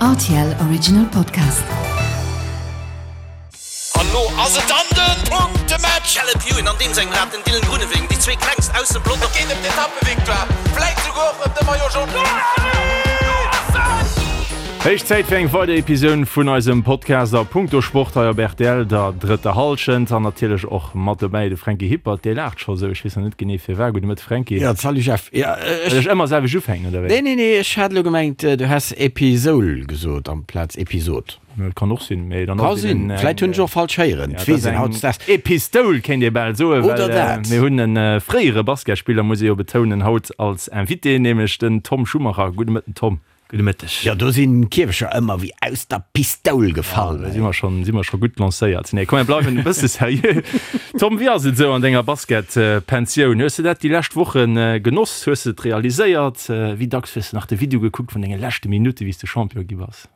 Rtl Original Podcast. An lo ass et dann den Punktematch! Caleb Ewan an deem sengem Rad, den Dylan Groenewegen, déi zwee klengst aus dem Pelotong. Et geet ëm d'Etappevictoire, vläit souguer och ëm de Maillot Jaune. Héich Zäit fir eng weider Episoun vun eisem Podcast a Punkto Sport hei op rtl, der drëtter Hallschent. An natierlech och mat dobäi de Franky Hippert, dee laacht scho sou, ech weess nach net genee firwat. Gudde Mëtte Franky. Jo, salut Jeff. Jo, ech. Well ech ëmmer selwecht ufänken, oder wéi? Nee, nee, nee, ech hat elo gemengt, du häss Episoul gesot amplaz Episod. Dat kann och sinn, mee dann Ka ass et sinn. eben Vläit hunn ech och falsch héieren. Ja, dat ass eng Epistoul, kéint ee bal soen, well Oder dat. mir hunn e fréiere Basketspiller, muss ee jo betounen, haut als Invité, nämlech den Tom Schumacher. Gudde Mëtten, Tom. Gudde Mëtteg. Jo, do sinn d'Kierfecher ëmmer wéi aus der Pistoul gefall. Da si mer schonn, si mer scho gutt lancéiert. Nee, komm, mir bleiwen e bësse seriö. Tom, wéi ass et esou an denger Basketpensioun? Hues de dat déi lescht Woche genoss? Hues de et realiséiert? Wéi dacks hues de nach de Video gekuckt vun denge leschte Minutte, wéi s de Champion gi bass?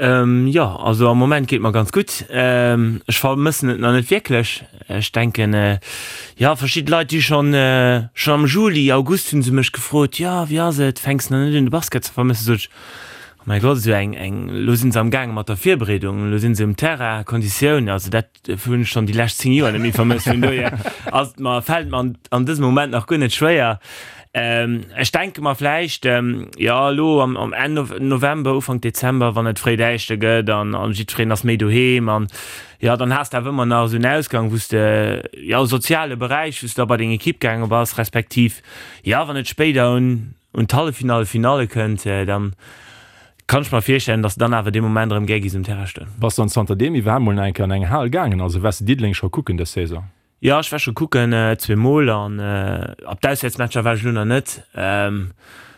Jo, also am Moment geet mer ganz gutt. Ech vermëssen et nach net wierklech. Ech denken, jo, verschidde Leit, déi schonn, schonn am Juli, August hu se mech gefrot, jo, wéi ass et, fänks nach net un de Basket ze vermëssen? Sot ech, oh mäi Gott, esou eng, eng, elo si se am gaange mat der Virbereedung, elo si se um Terrain, Konditioun, also dat hunn ech schonn déi lescht 10 Joer net méi vermësst. Vun dohier ass et mer, fält et mer an dësem Moment nach guer net schwéier. Ech denke mer vläicht, jo elo am am Enn November, Ufank Dezember, wann et fréi däischter gëtt an an jiddwereen ass méi doheem an jo dann has de awer ëmmer nach esou en Ausgang, wou s de, jo e soziale Beräich, wou s de da bei deng Ekipp gaange bass, respektiv jo wann et spéider un un d'Halleffinalle, Finalle kënnt, dann kann ech mer virstellen, dass de dann awer dee Moment erëm gär giss um Terrain stoen. Bass dann zanterdeem iwwerhaapt mol nach eng Kéier an eng Hal gaangen? Also waars de Diddeleng scho kucken dës Saison? Jo, ech war scho kucken, zweemol an op d'Auswäertsmatcher war ech elo nach net.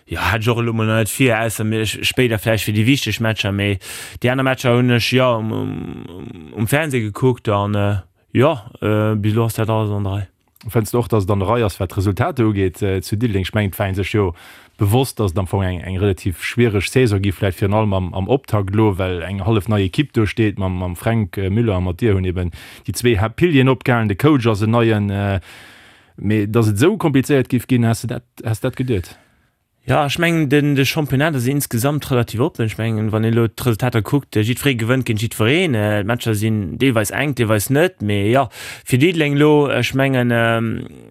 Jo, hat ech och elo mol nach net vir, ausser mir spéider vläicht fir déi wichteg Matcher. Mee déi aner Matcher hunn ech jo um Fernseh gekuckt an jo, bis elo ass dat alles an der Rei. Fënns de och, datt et an der Rei ass, wat d'Resultater ugeet zu Diddeleng? Ech mengen, et war ee sech jo bewosst, datt et am Fong eng eng relativ schwiereg Saison gi vläicht virun allem am am Optakt elo, well eng hallef nei Ekipp do steet mam mam Fränk Müller a mat dir hunn eben déi zwee Haaptpilieren opgehalen, de Coach ass en neien. Mee datt et esou komplizéiert géif ginn, has de dat has de dat geduet? Jo, ech mengen, den de Championnat ass insgesamt relativ oppen. Ech mengen, wann een elo d'Resultater kuckt, jiddweree gewënnt géint jiddwereen. D'Matcher sinn deelweis enk, deelweis net. Mee jo, fir Diddeleng elo, ech mengen,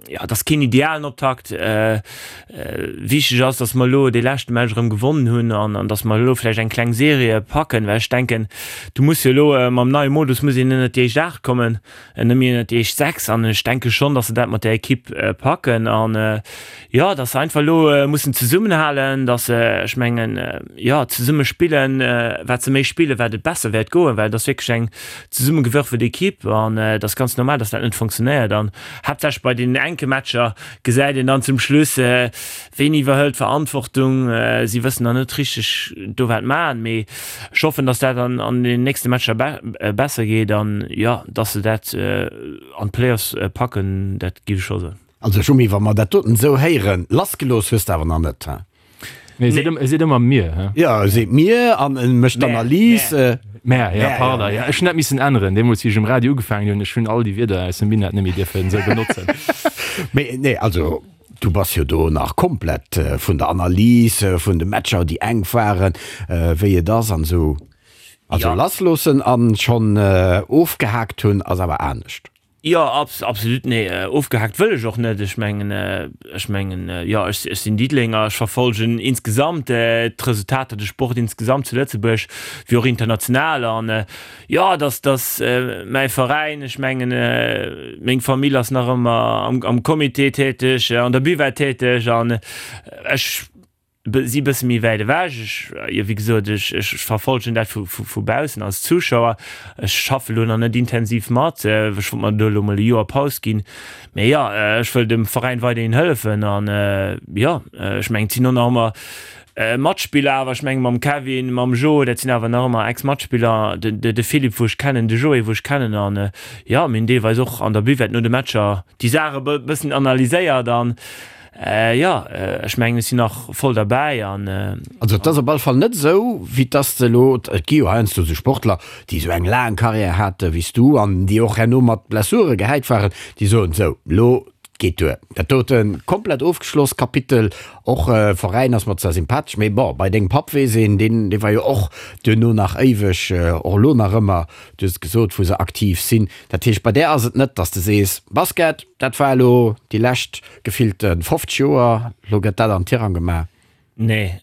jo, et ass keen idealen Optakt. Wichteg ass, datt mer elo dee leschte Match erëm gewonnen hunn an an datt mer elo vläicht eng kleng Serie packen, well ech denken, du muss jo elo mam neie Modus muss een ënnert déi éischt 8 kommen, net méi ënnert déi éischt 6. An ech denke schonn, datt se dat mat där Ekipp packen an, Jo, dass se einfach elo mussen zesummenhalen, dass se, ech mengen, jo, zesumme spillen. Wat se méi spillen, wat et besser wäert goen, well et ass wierklech eng zesummegewürfelt Ekipp an et ass ganz normal, dass dat net funktionéiert. An haaptsächlech bei deenen enke Matcher gesäit een dann zum Schluss, ween iwwerhëlt d'Verantwortung. Si wëssen nach net richteg do wat maachen, mee ech hoffen, dass dat an an den nächste Matcher besser geet an, jo, dass se dat an d'Playoffs packen, dat géif ech scho soen. Also Schumi, wa mer dat doten esou héieren, lassgelooss hues de awer nach net, he? Nee, e seet ëmmer, e seet ëmmer mir, he? Jo, e seet mir an e mécht d'Analys. Mär, jo, pardon, jo, ech hunn dat missen änneren, deemools wéi ech um Radio ugefaangen hunn, ech hunn all déi Wierder aus dem Minett net méi dierfen esou benotzen. Mee nee, also du bass jo do nach komplett vun der Analys, vun de Matcher, déi enk waren, wéi et ass an esou. Also lassloossen an schonn ofgehaakt hunn ass awer anescht. Jo, absolut, nee, ofgehaakt wëll ech och net. Ech mengen, ech mengen, jo, ech, ech sinn Diddelenger, ech verfolgen insgesamt d'Resultater, de Sport insgesamt zu Lëtzebuerg wéi och international. An jo, dass, dass mäi Veräin, ech mengen, meng Famill ass nach ëmmer am, am Comité täteg, an der Buvette täteg an ech, si bësse méi wäit ewech. Ech, jo wéi gesot, ech, ech verfolgen dat vu, vu, vu baussen als Zuschauer. Ech schaffe lo nach net intensiv mat, ech wollt mer do elo mol e Joer Paus ginn. Mee jo, ech wëll dem Veräin weiderhin hëllefen an jo, ech mengen, et sinn och nach ëmmer Matspiller awer, ech mengen mam Kevin, mam Jo, dat sinn awer nach ëmmer Ex-Matspiller, de, de, de Philippe wou ech kennen, de Joé wou ech kennen an jo, mir hunn deelweis och an der Buvette no de Matcher déi Saache bëssen analyséiert an Jo, ech mengen ech sinn nach voll derbäi an. Also et ass op alle Fall net esou, wéi dass de elo, et gi jo heiansdo esou Sportler, déi esou eng laang Karriär hate wéi s du an déi och herno mat Blessure gehäit waren, déi soen, sou, elo. geet duer. Dat doten komplett ofgeschloss Kapitel. Och Veräin ass mer zwar sympathesch, mee bon, bei dengem Papp weess een, deen dee war jo och duerno nach éiweg, och elo nach ëmmer, du hues et gesot, wou se aktiv sinn. Dat heescht, bei där ass et net, dass de sees, Basket, dat war elo déi lescht gefillte 50 Joer, elo gëtt dat an Tirang gemaach. Nee,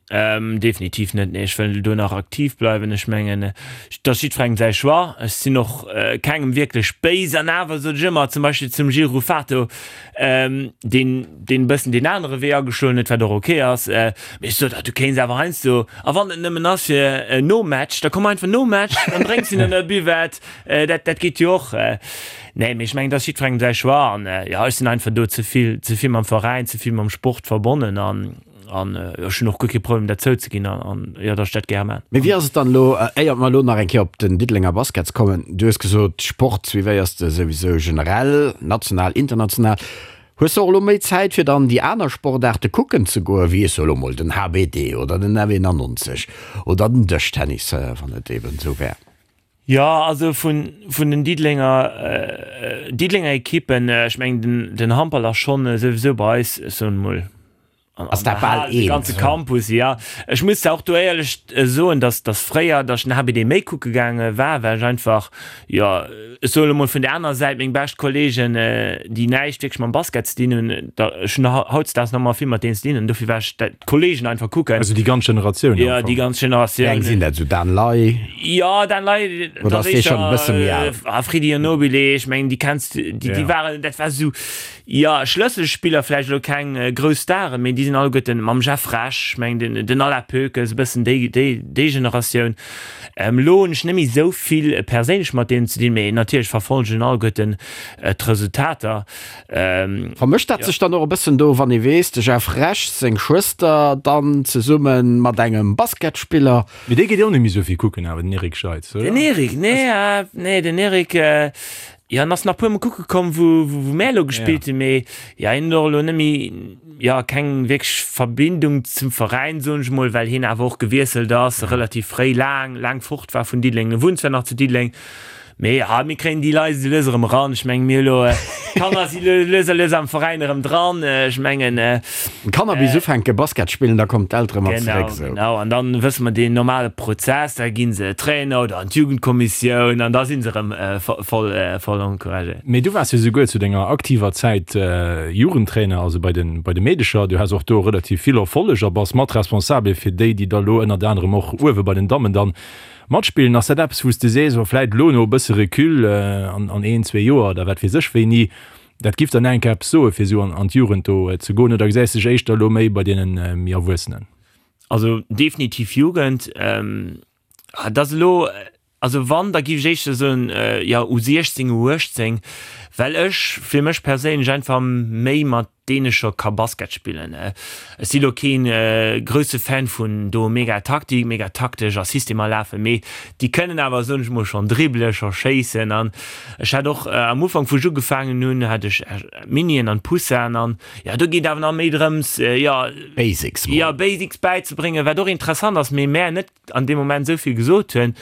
definitiv net. Nee, ech wëll do nach aktiv bleiwen. Ech mengen, et ass jiddwerengem säi Choix. Ech sinn och kengem wierklech béis. An awer sot ech ëmmer, zum Beispill zum Gilles Ruffato, deen, deen e bëssen deen anere Wee ageschloen huet, wat och ok ass, mee ech sot, ah, du kéints awer heiansdo, a wann et nëmmen ass fir nom Match, da komm einfach nom Match, dann drénks de an der Buvette, dat, dat geet jo och. Nee, mee ech mengen, et ass jiddwerengem säi Choix. An jo, ech sinn einfach do ze vill, ze vill mam Veräin, ze vill mam Sport verbonnen an, An ech hunn och guer kee Problem dat zouzeginn an jo, datt ech dat gär man. Mee wéi ass et dann elo, éiert mer elo nach eng Kéier op den Diddelenger Baskets kommen, du hues gesot, Sport suivéiers de souwisou generell, national, international. Hues de och elo méi Zäit fir dann déi aner Sportaarte kucken ze goen, wéi ech soe elo mol den HBD oder den F91 oder den Dëschtennis, wann et eben esou wär? Jo, also vun vun den Diddelenger Diddelenger Ekippen, ech mengen den den Handball ass schonn souwisou bei eis, ech soen emol, an Ass dat bal de ganze Campus, jo. Ech muss zwar och do éierlech soen, datt datt fréier, datt ech den HBD méi kucke gaange war, well ech einfach, jo, ech soen elo mol vun där anerer Säit, meng bescht Kolleegen, déi näischt wierklech mam Basket ze dinn hunn, da ech hunn hautdesdaags nach ëmmer vill mat deenen ze dinn an dofir war ech dat d'Kolleegen einfach kucken. Also déi ganz Generatioun am Jo, déi ganz Generatioun. Wéi eng sinn dat? Esou Dan Ley? Jo, Dan Ley, Oder ass dee schonn e bësse méi al? A Freddy Anobile, ech mengen, déi kenns de, déi, déi waren, dat war esou, jo, Schlësselspiller, vläicht elo keng grouss Staren, mee déi sinn alleguerten mam Jeff Rech, ech mengen, den, den Alain Poekes, e bëssen déi, déi, déi Generatioun. Elo hunn ech net méi esou vill perséinlech mat deenen ze dinn, mee natierlech verfollegen alleguerten d'Resultater. Vermëscht dat sech dann och e bëssen do, wann ee weess, de Jeff Rech seng Schwëster dann zesumme mat engem Basketspiller? Mee dee geet jo och net méi esou vill kucken awer, den Eric Scheitz, oder? Den Eric, nee, nee, den Eric, jo, en ass nach puer mol kucke komm, wou, wou mär elo gespillt hunn, mee jo, hien huet och elo net méi, jo, keng wierklech Verbindung zum Veräin, soen ech mol, well hien awer och gewiesselt ass, relativ fréi, laang, laang fort war vun Diddeleng. E wunnt zwar nach zu Diddeleng, Mee ja, mir kréien déi Leit esou lues erëm eran. Ech mengen, mir hu lo, d'Kanner si lo lues a lues am Veräin erëm dran. Ech mengen. D'Kanner bis ufänke Basket spillen, da kommen d'Eltere mat zeréck. Genau, genau. An dann wësse mer deen normale Prozess, da gi se Trainer oder an d'Jugendkommissioun an da si se erëm voll, voll encouragéiert. Mee du waars jo souguer zu denger aktiver Zäit Jugendtrainer, also bei de, bei de Meedecher. Du has och do relativ vill Erfolleg a bass mat responsabel fir déi, déi da lo ënnert anerem och uewe bei den Dammen dann Matspillen, ass dat eppes wou s de sees, oh vläit elo no e bësse Recul, an een, zwee Joer oder wat weess ech wéini, dat giff dann enk eppes soe fir esou an d'Jugend do ze goen, oder gesäis de dech éischter elo méi bei deene méi Erwuessenen? Also definitiv Jugend. Dat ass elo, also wann, da giff ech éischter soen, jo U16, U18, well ech fir mech perséinlech einfach méi mat deene scho ka Basket spillen. Ech si lo keen grousse Fan vun do mega Taktik, mega taktesch a Systemer lafen, mee déi kënnen awer, soen ech mol, schonn dribbelen, scho schéissen. An ech hat och am Ufank, wou ech ugefaangen hunn, hat ech Minien an Poussin an jo, do geet awer nach méi drëms, jo, Basics mol. Jo, Basics bäizebréngen, wat och interessant ass, mee mär net an deem Moment esou vill gesot hunn.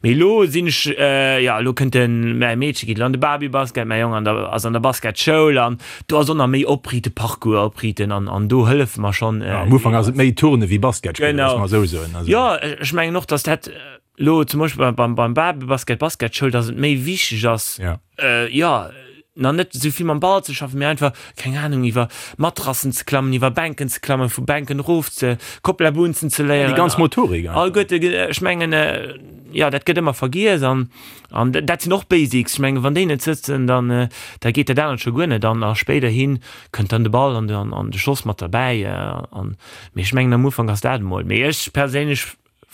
Mee elo sinn ech, jo, elo kënnt den, mäi Meedche geet elo an de Babybasket, mäi Jong an der, ass an der Basketschoul an do ass och nach méi opriite, Parcours opriiten an, an do hëllefe mer schonn. Jo, am Ufank ass et méi Turne wéi Basket spillen, loosse mer esou soen. Also. Jo, ech mengen och, datt dat elo zum Beispill beim, beim Babybasket, Basketschoul, datt et méi wichteg ass, jo, nach net esou vill mam Ball ze schaffen, mee einfach, keng Ahnung, iwwer Matrassen ze klammen, iwwer Bänken ze klammen, vu Bänken erof ze, Kopplabunzen ze léieren. Déi ganz Motorik einfach. Alleguerte, ech mengen, jo, dat gëtt ëmmer vergiess an, an dat sinn och Basics. Ech mengen, wann déi net sëtzen, dann, da geet dat anert scho guer net an a spéiderhi kënnt dann de Ball an de, an de Schoss mat derbäi an, mee ech mengen, am Ufank ass dat emol. Mee ech perséinlech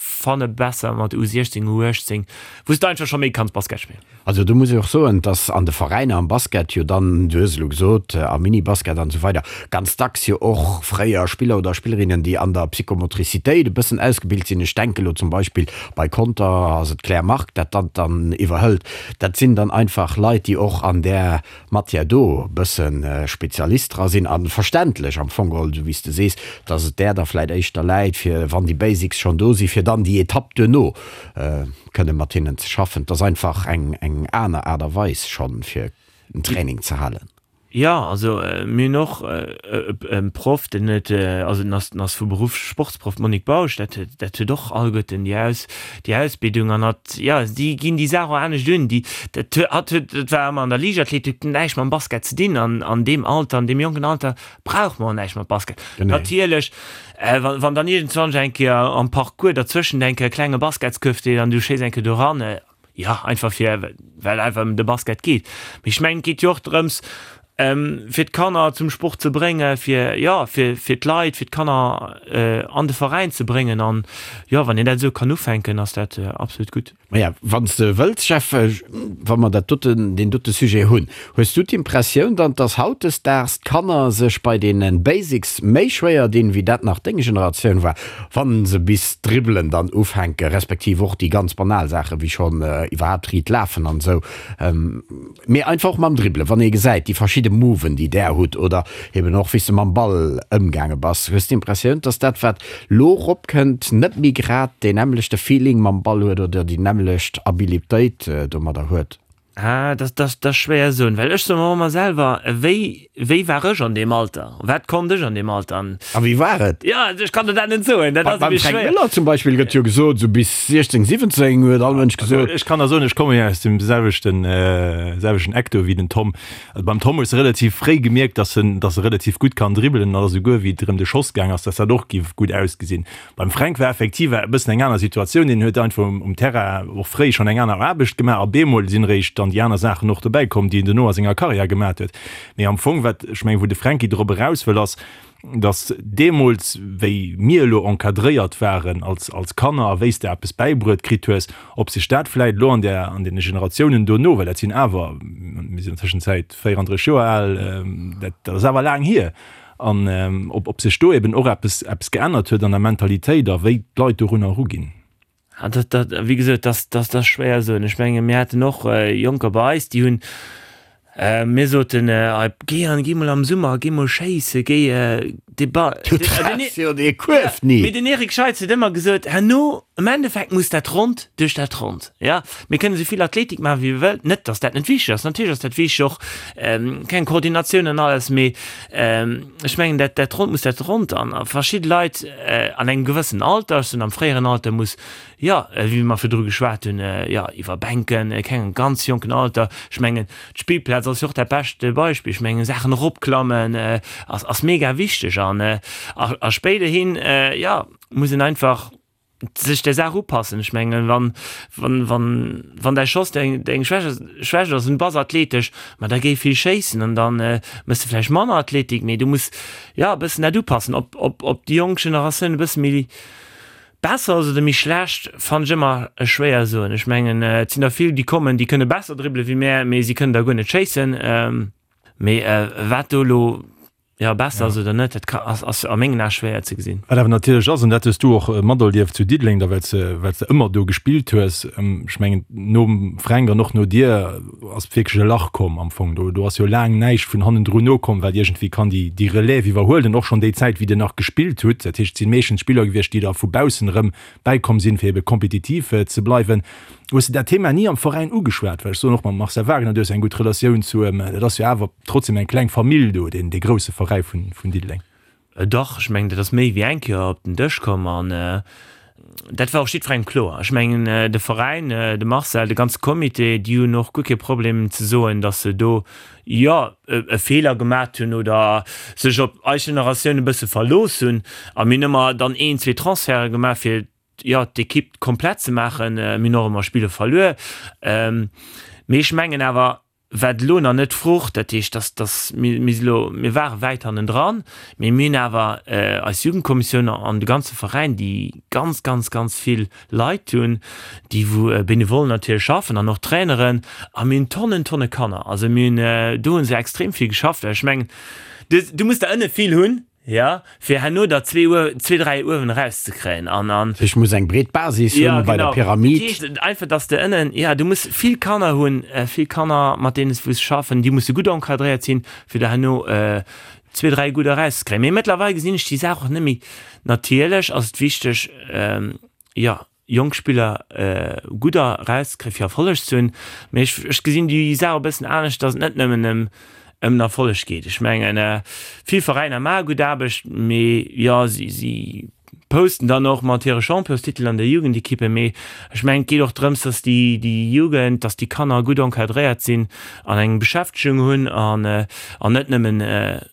Fanne besser mat U16, U18, wou s de einfach scho méi kanns Basket spillen. Also do muss ech och soen, dass an de Veräiner am Basket jo dann, du hues elo gesot, am Minibasket an esou weider, ganz dacks jo och fréier Spiller oder Spillerinnen, déi an der Psychomotricitéit e bëssen ausgebilt sinn, ech denke lo zum Beispill bei Conter ass et d'Claire Margue, dat dat dann iwwerhëlt, dat sinn dann einfach Leit, déi och an där Matière do e bësse Spezialist dra sinn a verständlech am Fong geholl, esou wéi s de sees, dass et där da vläit éischter läit, fir wann déi Basics schonn do sinn, fir dann déi Etapp duerno kënne mat hinnen ze schaffen. Et ass einfach eng aner Aart a Weis schonn, fir en Training ze halen. Jo, also mir hunn och e Proff, deen huet, also den ass, den ass vu Beruff Sportsproff, d'Monique Bausch, dat huet, dat huet och alleguerten déi Aus, déi Ausbildung an hatt, jo, déi ginn déi Saach och anescht un. Déi, dat huet, hatt huet, dat war ëmmer an der Liichtathletik, huet näischt mam Basket ze dinn an an deem Alter, an deem jonken Alter brauch mer och näischt mat Basket. Natierlech, wann, wann dann iergendzwanch eng Kéier am Parcours derzwëschent eng Kéier e klenge Basketskuerf steet an du schéiss eng Kéier do ran, Jo, einfach fir, well einfach ëm de Basket geet. Mee ech mengen, et geet jo och drëms, fir d'Kanner zum Sport ze bréngen, fir, jo, fir, fir d'Leit, fir d'Kanner an de Veräin ze bréngen. An, jo, wann een dat esou kann ufänken, ass dat absolut gutt. Maja, wann s de wëlls, Jeff, wa mer dat doten, deen dote Sujet hunn, hues du d'Impressioun dann, dass hautdesdaags d'Kanner sech bei deene Basics méi schwéier dinn, wéi dat nach deng Generatioun war? Wann se bis dribbelen dann ufänken, respektiv och déi ganz banal Saachen, wéi schonn iwwerhaapt riit lafen an esou, mee einfach och mam Dribbelen, wann ee gesäit déi verschidde Moven, déi där hutt oder eben och wéi s de mam Ball ëmgaange bass, hues d'Impressioun, dass dat wat lo eropkënnt, net méi grad deen nämmlechte Feeling mam Ball huet oder déi nämmlecht Abilitéit domadder huet? Ah, dat, dat, dat ass schwéier soen, well ech soe mer ëmmer selwer, wéi, wéi war ech an deem Alter? Wat konnt ech an deem Alter? An. A wéi war et? Jo, ech kann der dat net soen, dat ass e Beim Fränk Müller zum Beispill gëtt jo gesot, esou bis 16, 17 huet all Mënsch gesot. Ech kann der soen, ech komme jo aus dem selwechten, selwechten Eck do wéi den Tom. Also beim Tom hues de relativ fréi gemierkt, dass en, dass e relativ gutt kann dribbelen an esouguer wéi et erëm de Schoss gaang ass, dass dat och giff gutt ausgesinn. Beim Fränk war effektiv e bëssen eng aner Situatioun. Deen huet einfach um Terrain och fréi schonn eng aner Aarbecht gemaach a bemol sinn eréischt dann déi aner Saachen och dobäi komm, déi en dono a senger Karriär gemaat huet. Mee am Fong, wat ech mengen, wou de Fränki drop eraus wëll, ass, datt deemools, wéi mir elo encadréiert waren als als Kanner a wéi s de eppes bäibruet kritt hues, ob sech dat vläit elo an där an deene Generatiounen dono, well dat sinn awer, mir sinn an Tëschenzäit 34 Joer al, dat dat ass awer laang hier, An ob sech do eben och eppes eppes geännert huet an der Mentalitéit a wéi d'Leit dorunner eruginn. Ah, dat, dat, wéi gesot, dat, dat, dat ass schwéier soen. Ech menge mir haten och Jonker bei eis, déi hunn, mir soten, géi an, géi mol am Summer, géi mol schéisse, géi de Ball. Du treffs jo dee Kuerf ni. Mee den Eric Scheitz huet ëmmer gesot, herno, am Endeffekt muss dat Rond duerch dat Rond. Jo, mir kënnen esou vill Athletik maachen, wéi mir wëllen. Net, datt dat net wichteg ass, natierlech ass dat wichteg, och keng Koordinatioun an alles, mee Ech mengen, dat, dat Rond muss dat Rond an a verschidde Leit an engem gewëssen Alter, ech soen am fréieren Alter, muss, jo, wéi mer virdru geschwat hunn, jo, iwwer Bänken, kengem ganz jonken Alter, ech mengen, d'Spillplaz ass jo och dat beschte Beispill, ech mengen, Saachen eropklammen ass, ass mega wichteg an a spéiderhin, jo, muss een einfach sech der Saach upassen. Ech mengen, wann, wann, wann, wann däi Schoss deng, deng Schwäch, Schwächt ass an du bass athletesch, ma da géi vill schéissen an dann méchs de vläicht manner Athletik, mee du muss, jo, e bëssen dat upassen. Ob, ob, ob déi jonk Generatioun e bësse méi besser ass oder méi schlecht, fannen ech ëmmer schwéier soen. Ech mengen, et sinn der vill, déi kommen, déi kënne besser dribbele wéi mär, mee si kënnen der guer net schéissen. Mee wat do elo Jo, besser ass oder net, dat ka, ass, ass a mengen Ae schwéier ze gesinn. Wat awer natierlech ass, an dat hues du och materlieft zu Diddeleng da, well s de, well s de ëmmer do gespillt hues, ech mengen, nom Fränk an och no dir ass wierklech e Lach komm am Fong. Do, do ass jo laang näischt vun hannendrun nokomm, wat iergendwéi kann déi, déi Relève iwwerhuelen, och schonn déi Zäit, wéi Dir nach gespillt hutt. Dat heescht, et si meeschtens Spiller gewiescht, déi da vu baussen erëm bäikomm sinn, fir ebe kompetitiv ze bleiwen. Hues de dat Thema ni am Veräin ugeschwat? Well ech soen och mam Marcel Wagner, du hues eng gutt Relatioun zu em, dat ass jo awer trotzdem eng kleng Famill do, deen dee grousse Veräi vun vun Diddeleng. Dach, ech mengen, dat ass méi wéi eng Kéier op den Dësch komm an dat war och jiddwerengem kloer. Ech mengen, de Veräin, de Marcel, de ganze Comité, déi hunn och guer kee Problem ze soen, datt se do, jo, e Feeler gemat hunn oder sech op eis Generatioun e bësse verlooss hunn. A mir hunn ëmmer dann een, zwee Transferte gemaach, fir jo, d'Ekipp komplett ze maachen. Mir hunn och ëmmer Spiller verluer. Mee ech mengen awer, wat elo nach net frucht, dat heescht, dass, dass mir, mir si lo, mir ware wäit hannendran, mee mir hunn awer eis Jugendkommissioun an de ganze Veräin, déi ganz, ganz, ganz vill Leit hunn, déi wou benevol natierlech schaffen an och Traineren, a mir hunn Tonnen, Tonne Kanner. Also mir hunn, do hu se extrem vill geschafft. Well ech mengen, du, du muss der ënne vill hunn, Jo, fir herno der zwee Uer, zwee, dräi uewen erauszekréien an, an. Ech muss eng breet Basis hunn bei der Pyramid. Dat heescht einfach, dass de ënnen, jo, du muss vill Kanner hunn, vill Kanner, mat deenen s du muss schaffen, déi musse gutt encadréiert sinn, fir der herno zwee, dräi gutt erauszekréien. Mee mëttlerweil gesinn ech déi Saach och net méi. Natierlech ass et wichteg, jo, jonk Spiller gutt erauszekréien, fir Erfolleg ze hunn. Mee ech, ech gesinn déi Saach e bëssen anescht, dass et net nëmmen ëm. Ëm den Erfolleg geet. Ech mengen, vill Veräiner maache gutt Aarbecht, mee jo, si, si posten dann och mat hire Championstitel an der Jugendekippe. Mee ech mengen, et geet och drëms, dass déi, déi Jugend, dass déi Kanner gutt encadréiert sinn an eng Beschäftegung hunn an, an net nëmmen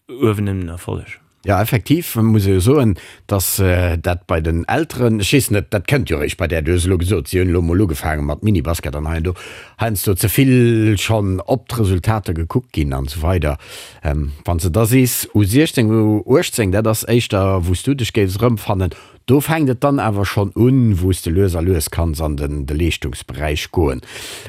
uewen ëm den Erfolleg. Jo, effektiv muss ee jo soen, dass dat bei den Elteren, ech weess net, dat kënnt jo eréischt bei där, du hues elo gesot, si hunn elo emol ugefaange mat Minibasket an hei an do, heiansdo ze vill schonn op d'Resultater gekuckt ginn an esou weider. Wann s de da sees U16, U18, dat ass éischter wou s du dech géifs erëmfannen, Do fänkt et dann awer schonn un, wou s de lues a lues kanns an den de Leeschtungsberäich goen.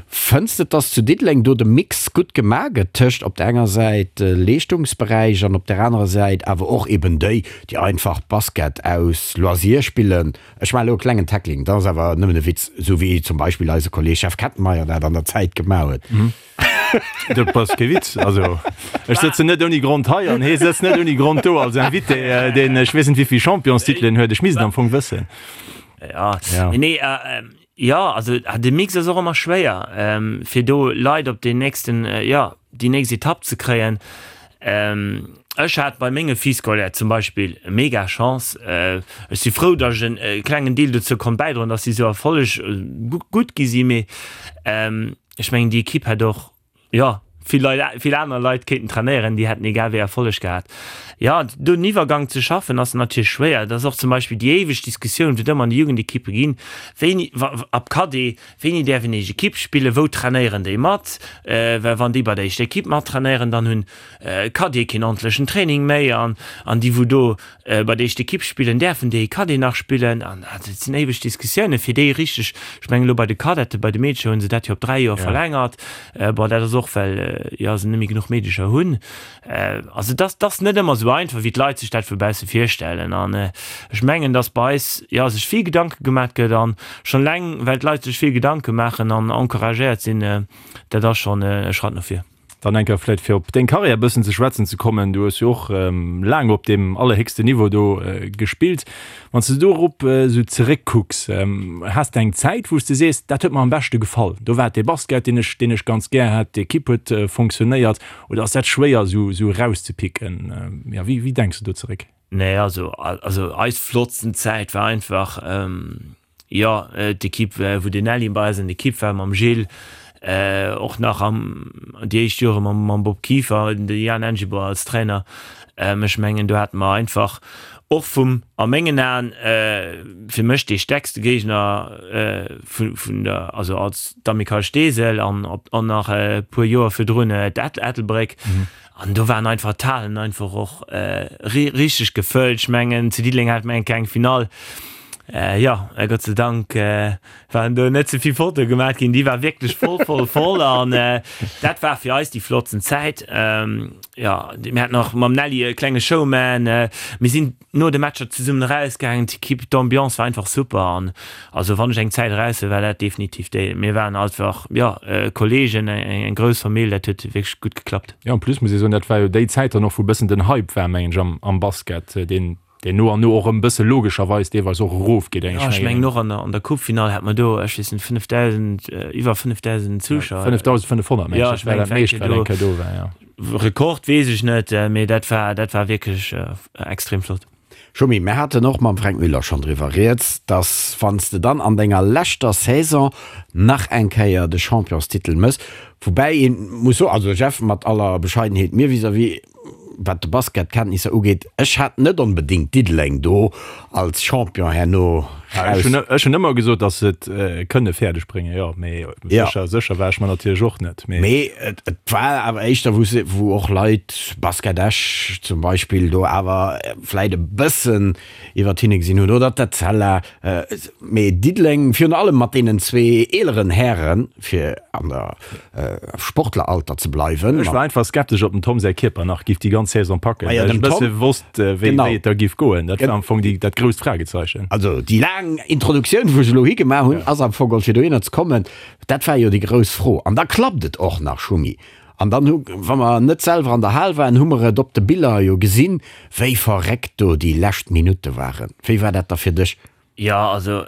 Fënns de, dass zu Diddeleng do de Mix gutt gemaach gëtt tëscht op der enger Säit Leeschtungsberäich an op der anerer Säit awer och eben déi, déi einfach Basket aus Loisir spillen? Ech maachen elo e klengen Tackling, dat ass awer nëmmen e Witz, esou wéi zum Beispill eise Kolleeg Jeff Kettenmeyer dat an der Zäit gemaach huet. Dat ass kee Witz. Also ech sëtzen net ouni Grond hei an hee sëtzt net ouni Grond do als Invité, deen ech weess net wéivill Championstitelen huet. Ech misst et am Fong wëssen. Ja, ja. Nee, äh, ja, also de Mix ass och ëmmer schwéier, ähm, fir do Leit op den nächsten, äh, ja, déi nächst Etapp ze kréien. Ähm, ech hat bei menge Filles scolaires zum Beispill mega Chance. Äh, ech si frou, datt ech en äh, klengen Deel dozou konnt bäidroen, datt si sou erfolleg äh, gutt gi si, mee ähm, Ech mengen, déi Ekipp hätt och, jo, vill Leit, vill aner Leit kéinten trainéieren, déi hätten egal wéi Erfolleg gehat. Jo, do den Iwwergang ze schaffen, ass natierlech schwéier. Et ass och zum Beispill déi éiweg Diskussioun, wou et ëmmer an de Jugendekippe ginn, wéini, wa, ab Cadet, wéini däerf een éischt Ekipp spillen, wou trainéieren déi mat? Well wann déi bei der éischter Ekipp mattrainéieren, dann hunn d'Cadete keen ordentlechen Training méi an, an déi wou do Bei der éischter Ekipp spillen, däerfen déi Cadet nach spillen? An dat sinn éiweg Diskussiounen, fir déi richteg, ech mengen elo bei de Cadete, bei de Meedercher hu se dat jo op 3 Joer verlängert. Bon, dat ass och, well jo se net méi genuch Meedercher hunn. Also et ass, et ass net ëmmer esou einfach, wéi d'Leit sech dat vu bausse virstellen. An ech mengen, datt bei eis, jo, sech vill Gedanke gemaat gëtt an schonn eleng, well d'Leit sech vill Gedanke maachen an encouragéiert sinn, dat ass schonn e Schratt no vir. Dann eng Kéier vläicht fir op deng Karriär e bëssen ze schwätzen ze kommen. Du hues jo och laang op deem allerhéchsten Niveau do gespillt. Wann s de dorop esou zeréckkucks, has de eng Zäit, wou s de sees, dat huet mer am beschte gefall, do war et dee Basket, deen ech, deen ech ganz gär hat, d'Ekipp huet fonctionnéiert, oder ass dat schwéier esou, esou erauszepicken? Jo, wéi, wéi denks de do zeréck? Nee, also, also eis flottsten Zäit war einfach, Jo, d'Ekipp wou den Nelly bei eis an d'Ekipp war mam Gilles, och nach am déi éischt Jore mam Bob Kieffer, de Jan Engiboire als Trainer. Ech mengen do hate mer einfach och vum, a mengen Aen, fir mech dee stäerkste Géigner vun der, also als d'Amicale Steesel an an nach e puer Joer virdrun d'Ettelbréck. An do waren einfach d'Halen einfach och richteg gefëllt. Ech mengen zu Diddeleng hat mer eng kleng Finall. Jo, Gott sei Dank waren do net ze vill Fotoe gemaach ginn. Déi war wierklech voll, voll, voll an dat war fir eis déi flottsten Zäit. Jo, mir haten och mam Nelly e klenge Showman. Mir sinn no de Matcher zesummen erausgaangen, d'Equipe, d'Ambiance war einfach super an also wann ech eng Zäit eraushuelen, war dat definitiv déi. Mir waren einfach, jo, Kollegen, eng grouss Famill, dat huet wierklech gutt geklappt. Jo, en plus muss ee soen, dat war jo déi Zäit dann och, wou e bëssen den Hype war, mengen ech, am, am Basket, deen, deen no an no och erëm e bësse logescherweis deelweis och erofgeet, eng, ech mengen och an der, an der Coupe-Finall hat mer do, ech weess net, 5.000, iwwer 5.000 Zuschauer. 5.500, mengen ech, dat war dat meescht, wat eng Kéier do war, jo. Rekord weess ech net, mee dat war, dat war wierklech extrem flott. Schumi, mir haten och mam Fränk Müller schonn driwwer rieds, dass wann s de dann an denger leschter Saison nach eng Kéier de Championstitel mëss, woubäi ee muss soen, also Jeff, mat aller Bescheidenheet mir vis-à-vis, wat de Basketkenntnisser ugeet, ech hat net onbedéngt Diddeleng do als Champion herno raus. Ech hunn ëmmer gesot, datt se et kënne fäerdeg bréngen, jo, mee sécher, sécher war ech mer natierlech och net. Mee et war awer éischter, wou se, wou och Leit, Basket Esch zum Beispill, do awer vläit e bëssen iwwert hinne gesinn hunn, oder d'Etzella. Mee Diddeleng, virun allem mat deenen zwee eeleren Hären, fir an der Sportleralter ze bleiwen. Ech war einfach skeptesch, ob dem Tom säi Kierper nach giff déi ganz Saison packen, well ech e bësse wosst, wéi et da giff goen. Dat war am Fong déi, dat grousst Fragezeichen. Also déi laang Introduktioun, wou ech elo higemaach hunn, ass am Fong geholl fir dohinner ze kommen. Dat war jo déi grouss Fro. An da klappt et och nach, Schumi. An dann hu, wa mer net selwer an der Hal waren, hu mer et op de Biller jo gesinn, wéi verréckt do déi lescht Minutte waren. Wéi war dat da fir dech? Jo, also.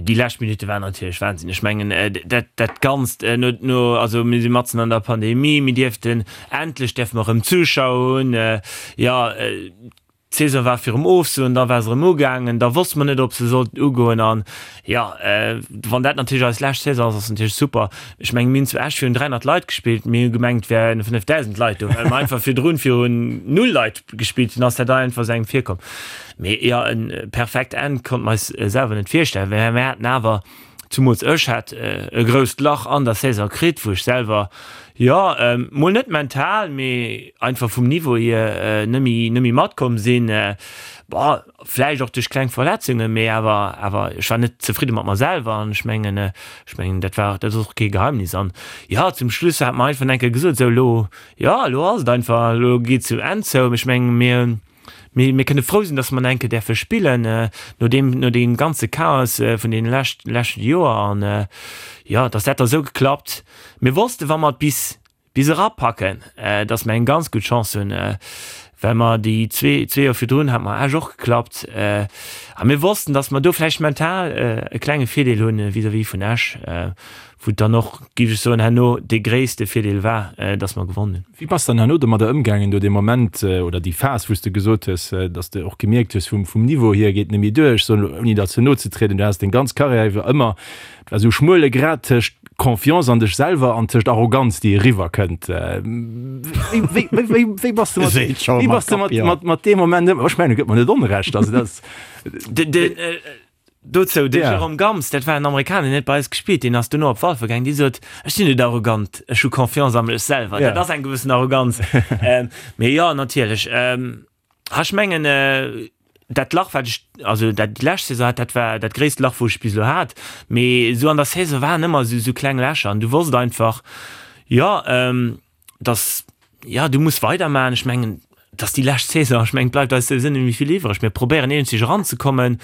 Déi lescht Minutte waren natierlech Wahnsinn. Ech mengen, dat, dat Ganzt no, no, also mir si matzen an der Pandemie, mir dierften, endlech däerfe mer erëm Zuschauer hunn. Jo, d'Saison war virum Ofsoen, da war se erëm ugaangen, da wosste mer net, ob se sollt ugoen. An jo, wann dat natierlech eis lescht Saison ass, ass natierlech super. Ech mengen, mir hunn zu Esch virun 300 Leit gespillt, mir hu gemengt, et wären 5.000 Leit do, well mer einfach virdrun virun null Leit gespillt hunn, ass dat einfach esou engem virkomm. Mee jo, e perfekt Enn konnte mer eis selwer net virstellen, well mir haten awer, zumools ech hat e grousst Lach an der Saison kritt, wou ech selwer, jo, mol net mental, mee einfach vum Niveau hier net méi, net méi matkomm sinn. Bon, vläicht och duerch kleng Verletzungen, mee awer, awer ech war net zefridde mat mer selwer an ech mengen, ech mengen dat war, dat ass och kee Geheimnis. An jo, zum Schluss hat mer einfach eng Kéier gesot, sou elo, jo, elo ass et einfach, elo geet et zum Enn zou. Ech mengen, mir Mee mir kënne frou sinn, dass mer nach eng Kéier däerfe spillen, no deem, no deem ganze Chaos vun deene lescht, leschte Joer. An, jo, dass dat da sou geklappt. Mir wossten, wa mer et bis, bis erapacken, dass mer eng ganz gutt Chance hunn, well mer déi zwee, zwee Joer virdrun hat mer Esch och geklappt. A mir wossten, dass mer do vläicht mental e klenge Virdeel hunn vis-à-vis vun Esch, wou et dann och, géif ech soen, herno dee gréisste Virdeel war, dass mer gewonnen hunn. Wéi bass de dann herno domadder ëmgaangen, do dee Moment oder déi Phas, wou s de gesot hues, dass de och gemierkt hues, vum vum Niveau hier geet net méi duer, ech soen elo, ouni der ze no ze trieden, du has deng ganz Karriär iwwer ëmmer, et war esou e schmuele Grad tëscht Confiance an dech selwer an tëscht Arroganz, déi eriwwer kënnt. Wéi wéi wéi wéi bass de mat wéi bass de mat mat mat deem Moment ëm? Ech mengen, gëtt mer net Onrecht, also dat ass. Dozou, de Jérôme Gams, dat war en Amerikaner, deen huet bei eis gespillt, deen ass duerno op Walfer gaangen, dee sot, Ech sinn net arrogant, ech hu Confiance a mech selwer. Dat ass eng gewëssen Arroganz. Mee jo, natierlech. Ha, ech mengen, dat Lach, wat ech, also dat déi lescht Saison hat, dat war dat gréisst Lach, wou ech bis elo hat. Mee esou an der Saison waren ëmmer esou, esou kleng Lächer an du wosst einfach, jo, dass, jo, du muss weidermachen. Ech mengen, dass déi lescht Saison, ech mengen, et bleift eis souwisou net méi vill iwwreg. Mir probéieren eenzeg eranzekommen.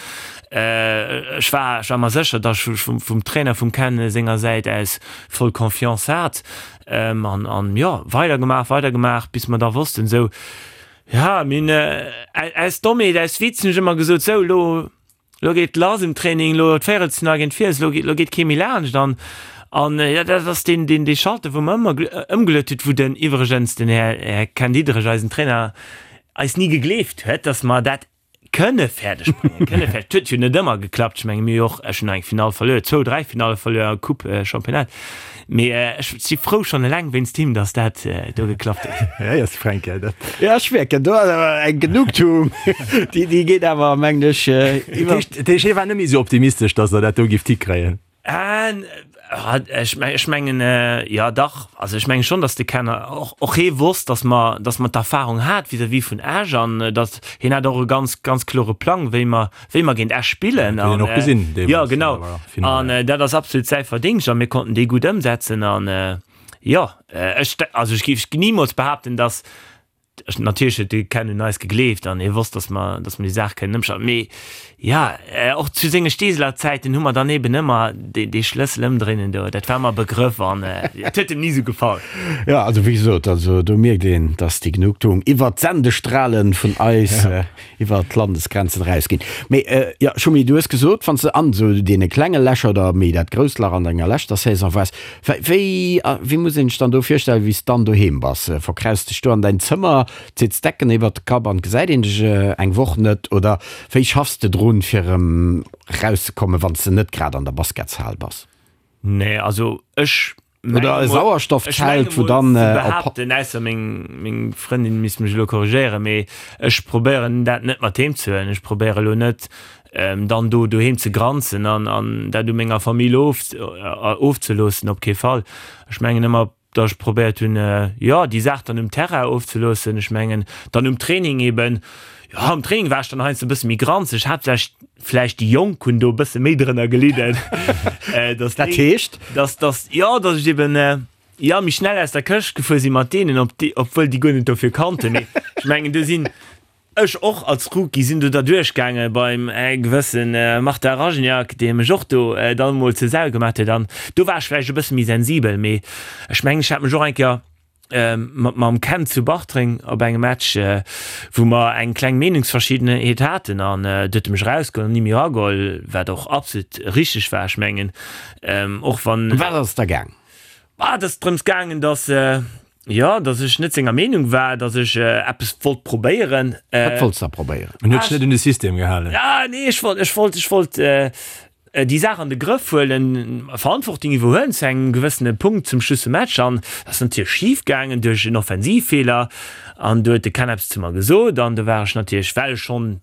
Ech war, ech war mer sécher, dass ech vum, vum Trainer, vum Ken senger Säit aus voll Confiance hat. An, an jo, weidergemaach, weidergemaach, bis mer da wossten, esou, ja, mir hunn aus Dommheet, aus Witz hunn ech ëmmer gesot, sou, elo, Lo geet lass um Training, lo d'Véierelsfinall géint Fiels, lo geet, lo geet kee méi laanscht an an jo dat ass deen, deen, dee Schalter wou mer ëmmer ëmgeluet huet, wou den iwwregens den Här, Här Ken Diederich, eisen Trainer, eis ni gegleeft huet, datt mer dat kënne fäerdeg bréngen, kënne fäerdeg. Et huet jo net ëmmer geklappt, ech menge mir hu jo och, ech hunn nach eng Finall verluer, zwou, dräi Finalle verluer, Coupe, Championnat. Mee ech si frou schonn eleng wéinst him, datt dat do geklappt huet. Ja, ja, Fränk, ja, dat. Ja, ech mierken, do ass awer eng Genugtuung, déi, déi geet awer, mengen ech, iwwer. Dat heescht, hie war net méi esou optimistesch, datt Der dat do gifft hikréien? Ech ech mengen, jo dach. Also ech menge schonn, datt de Ken och, och hee wosst, datt mer, datt mer d'Erfahrung hat vis-à-vis vun Esch an datt hien hat och e ganz, ganz klore Plang, wéi mer, wéi mer géint Esch spillen. Huet een och gesinn deemools. Jo, genau. An dat ass absolut säi Verdingscht a mir konnten dee gutt ëmsetzen. An jo, ech, also ech géif nimools behaapten, datt, natierlech huet de Ken un eis gegleeft an hie wosst, datt mer, datt mer déi Saach kënnen ëmschalten. Mee jo, och zu senge Steeseler Zäiten hu mer dann eben ëmmer dee, dee Schlëssel ëmdréinen do, dat war mer e Begrëff an et huet em ni esou gefall. Jo, also wéi gesot, also do mierkt een, datt déi Genugtuung iwwert d'Sendestrale vun eis iwwer d'Landesgrenzen erausginn. Mee jo, Schumi, du hues gesot, wann s de an esou deene klenge Lächer oder méi dat grousst Lach an denger leschter Saison waars, wéi, wéi muss een sech dann do virstellen, wéi s de dann doheem bass? Verkraus dech do an däin Zëmmer, zitts d'Decken iwwert de Kapp an gesäit een dech eng Woch net? Oder wéi schaffs de drun, fir erëm erauszekommen, wann s de net grad an der Basketshal bass? Nee, also ech Oder e Sauerstoffzelt, wou dann op. Behaapten, ausser meng, meng Frëndin misst mech elo korrigéieren, mee ech probéieren dat net mat heem ze huelen. Ech probéiere elo net dann do doheem ze granzen an, an dat u menger Famill of, ofzeloossen, op kee Fall. Ech mengen ëmmer, datt ech probéiert hunn, jo, déi Saach dann um Terrain ofzeloossen. Ech mengen dann um Training eben, jo, am Training war ech dann heiansdo e bësse méi granzeg, haaptsächlech vläicht déi Jonk hunn do e bësse méi drënner gelidden. Dass Dat heescht? Dass, dass, jo, dass ech eben, jo, méi schnell aus der Këscht gefuer si mat deenen, ob déi, obwuel déi guer net dofir kannten. Mee ech mengen, do sinn ech och als Rookie sinn do derduerch gaange beim gewësse Martin Rajniak, dee mech och do dann emol zur Sau gemaat huet. An do war ech vläicht e bësse méi sensibel. Mee ech mengen, ech hat mech och eng Kéier. Mam Ken zu Bartreng op engem Match, wou mer eng kleng Meenungsverschiddenheet haten an do huet e mech erausgeholl an ni méi erageholl, wat och absolut richteg war. Ech mengen, och wann. Ëm wat ass et da gaang? Bah, et ass drëms gaangen, datt, jo, datt ech net senger Meenung war, datt ech eppes wollt probéieren. Wat wollts de da probéieren? En huet sech net un de System gehalen. Ah, nee, ech wollt, ech wollt, ech wollt, déi Saach an de Grëff huelen, Verantwortung iwwerhuelen zu engem gewëssene Punkt zum Schluss vum Match an dat ass natierlech schif gaangen duerch en Offensivfeeler an do huet de Ken eppes zu mer gesot an do war ech natierlech, well ech schonn,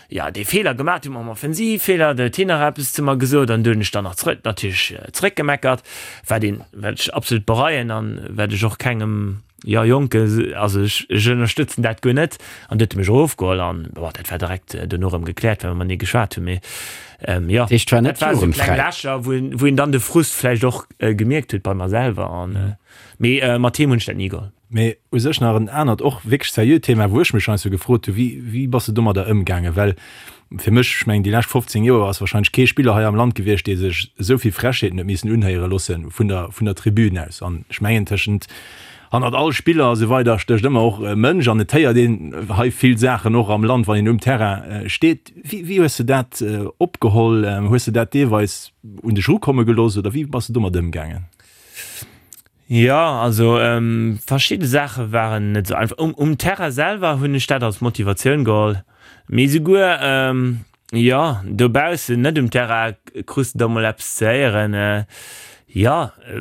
jo, dee Feeler gemaach hunn mam Offensivfeeler, do huet hien nach eppes zu mer gesot an do hunn ech dann nach zrëck, natierlech zrëckgemeckert, wat een, wat ech absolut bereien an wat ech och kengem. Jo Jonke, also ech ech ënnerstëtzen dat guer net. An du huet e mech erofgeholl an bon, dat war direkt dono erëm gekläert, well mer matenee geschwat hunn. Mee jo, Dat heescht, war net dat war esou kleng jugendfräi? Lächer, wou een wou een dann de Frust vläicht och gemierkt huet bei mer selwer. An mee mat him hunn ech dat ni geholl. Mee u sech nach en anert, och wierklech seriöt Thema, wou ech mech heiansdo gefrot hu, wéi wéi bass de domadder ëmgaangen? Well fir mech, ech mengen déi lescht 15 Joer ass wahrscheinlech kee Spiller hei am Land gewiescht, dee sech esou vill Frechheeten huet missen unhéiere loosse vun der vun der Tribün aus. An ech mengen tëschent hannert all Spiller a sou weider stécht ëmmer och e Mënsch an et héiert een hei vill Saachen och am Land, wann een um Terrain steet. Wéi wéi hues de dat opgeholl? Hues de dat deelweis un dech erukomme gelooss oder wéi bass de domat ëmgaangen? Jo, also verschidde Saache waren net esou einfach. Um Terrain selwer hunn ech dat als Motivatioun geholl, mee esouguer, jo, dobaussen, net um Terrain, krus de da mol eppes ze héieren, jo,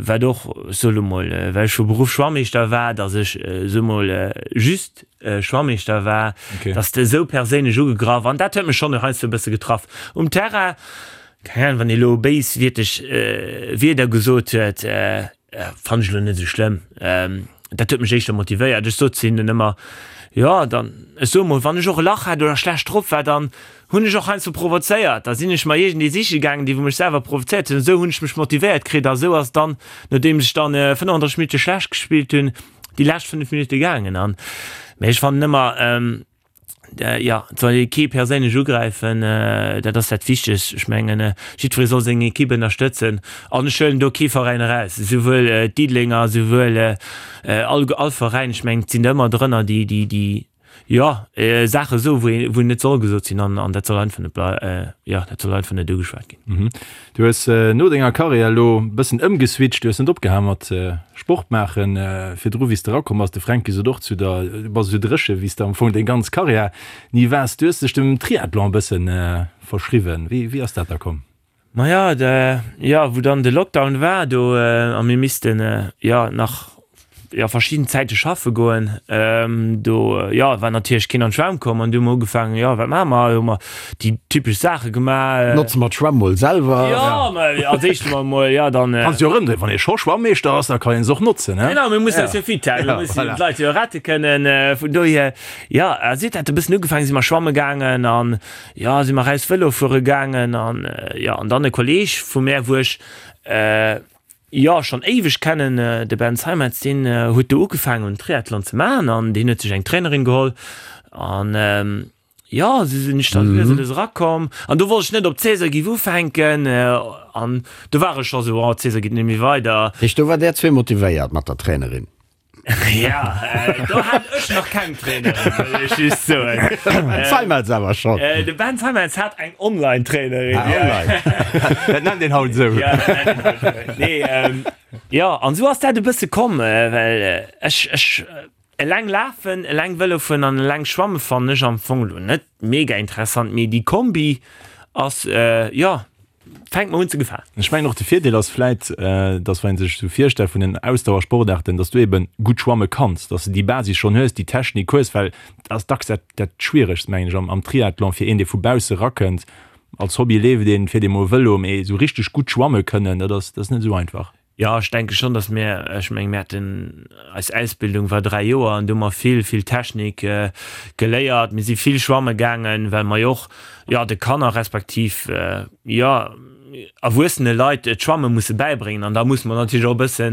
wat och, ech soe lo mol, well ech vu Beruff Schwammeeschter war, datt ech, soe mol, just Schwammeeschter war, datt s de esou perséinlech ugegraff an dat huet mech schonn heiansdo e bësse getraff. Um Terrain, Keng Ahnung, wann ee lo béiswierteg Wierder gesot huet, fannen ech lo net esou schlëmm. Dat huet mech éischter motivéiert. Ech sot zu hinnen ëmmer, jo, dann, ech soe mol, wann ech och e Lach hat oder schlecht drop war, dann hunn ech och heiansdo provozéiert. Da sinn ech mer iergendee siche gaangen, dee wou mech selwer provozéiert huet. An esou hunn ech mech motivéiert kritt. A esou ass et dann, nodeems ech dann 35 Minutte schlecht gespillt hunn, déi lescht 5 Minutte gaangen. An, mee ech fannen ëmmer, Jo, et soll ee kee perséinlech ugräifen, dat ass dat Wichtegst. Ech mengen, jiddweree soll seng Ekipp ënnerstëtzen an ech huelen do kee Veräin eraus, esouwuel d'Diddelenger, esouwuel all all Veräin. Ech mengen, et sinn der ëmmer drënner, déi, déi, déi, jo, Saache soen, wou ee, wou net soll gesot sinn an an dat soll einfach net blei, jo, dat soll einfach net ugeschwat ginn. Du hues no denger Karriär elo e bëssen ëmgeswitcht, du hues net opgehal mat Sport maachen. Virdru wéi s de erakomm bass, de Fränki sot och zu der, du bass esou dréche wéi s de am Fong deng ganz Karriär ni waars. Du hues dech dem Triathlon e bësse verschriwwen. Wéi wéi ass dat da komm? Maja, jo, wou dann de Lockdown war do a mir missten jo nach jo verschidden Zäite schaffe goen, do jo war natierlech keen an d'Schwämm komm an du hu mer ugefaangen, jo wat maache mer, hu mer déi typesch Saache gemaach. Notze mer d'Schwämm mol selwer. Jo, ma als éischt hu mer mol, jo dann. Kanns jo erëmdréinen, wann ee scho Schwammeeschter ass, da kann een se och notzen, he? Genau, mir mussen eis jo fit halen, mir mussen d'Leit jo rette kënnen, vun dohier, jo a si huet dat e bëssen ugefaangen, si mer schwamme gaangen an jo si mer raus Vëlo fuere gaangen an jo an dann e Kolleeg vu mär, wou ech Jo, schonn éiweg kennen. De Ben Seimetz, deen huet do ugefaangen un Triathlon ze maachen an deen huet sech eng Trainerin geholl an jo, esou sinn ech da lues a lues erakomm an do wollt ech net op d'Saison géif ufänken an do war ech scho sou, oh d'Saison geet net méi weider. Heescht do war där zwee motivéiert mat der Trainerin? Ja, do hat ech nach keng Trainerin, wëll ech just soen. Ben Seimetz awer schonn. De Ben Seimetz hat eng Online-Trainerin. Ah, online. Dat nennt een haut esou. Ja, dat nennt een haut esou. Nee, jo, an esou ass dat e bësse komm, well ech, ech eleng lafen, eleng Vëlo fueren an eleng schwamme fannen ech am Fong elo net mega interessant, mee déi Kombi ass, jo, fänkt mer un ze gefalen. Ech mengen och de Virdeel ass vläit, dass wann ee sech esou virstellt vun den Ausdauersportaarten, dass du eben gutt schwamme kanns, dass de déi Basis schonn hues, déi Technik hues, well dat ass dacks dat dat Schwieregst mengen ech am am Triathlon fir een dee vu bausse rakënnt. Als Hobby leeft een, fiert ee mol Vëlo, mee esou richteg gutt schwamme kënnen, dat ass dat ass net esou einfach. Jo, ech denke schonn, datt mir, ech menge mir haten, eis Ausbildung war 3 Joer an do hu mer vill, vill Technik geléiert. Mir si vill schwamme gaangen, well mer jo och, jo, de Kanner respektiv, jo, erwuessene Leit d'Schwamme musse bäibréngen. An da musse mer natierlech och e bësse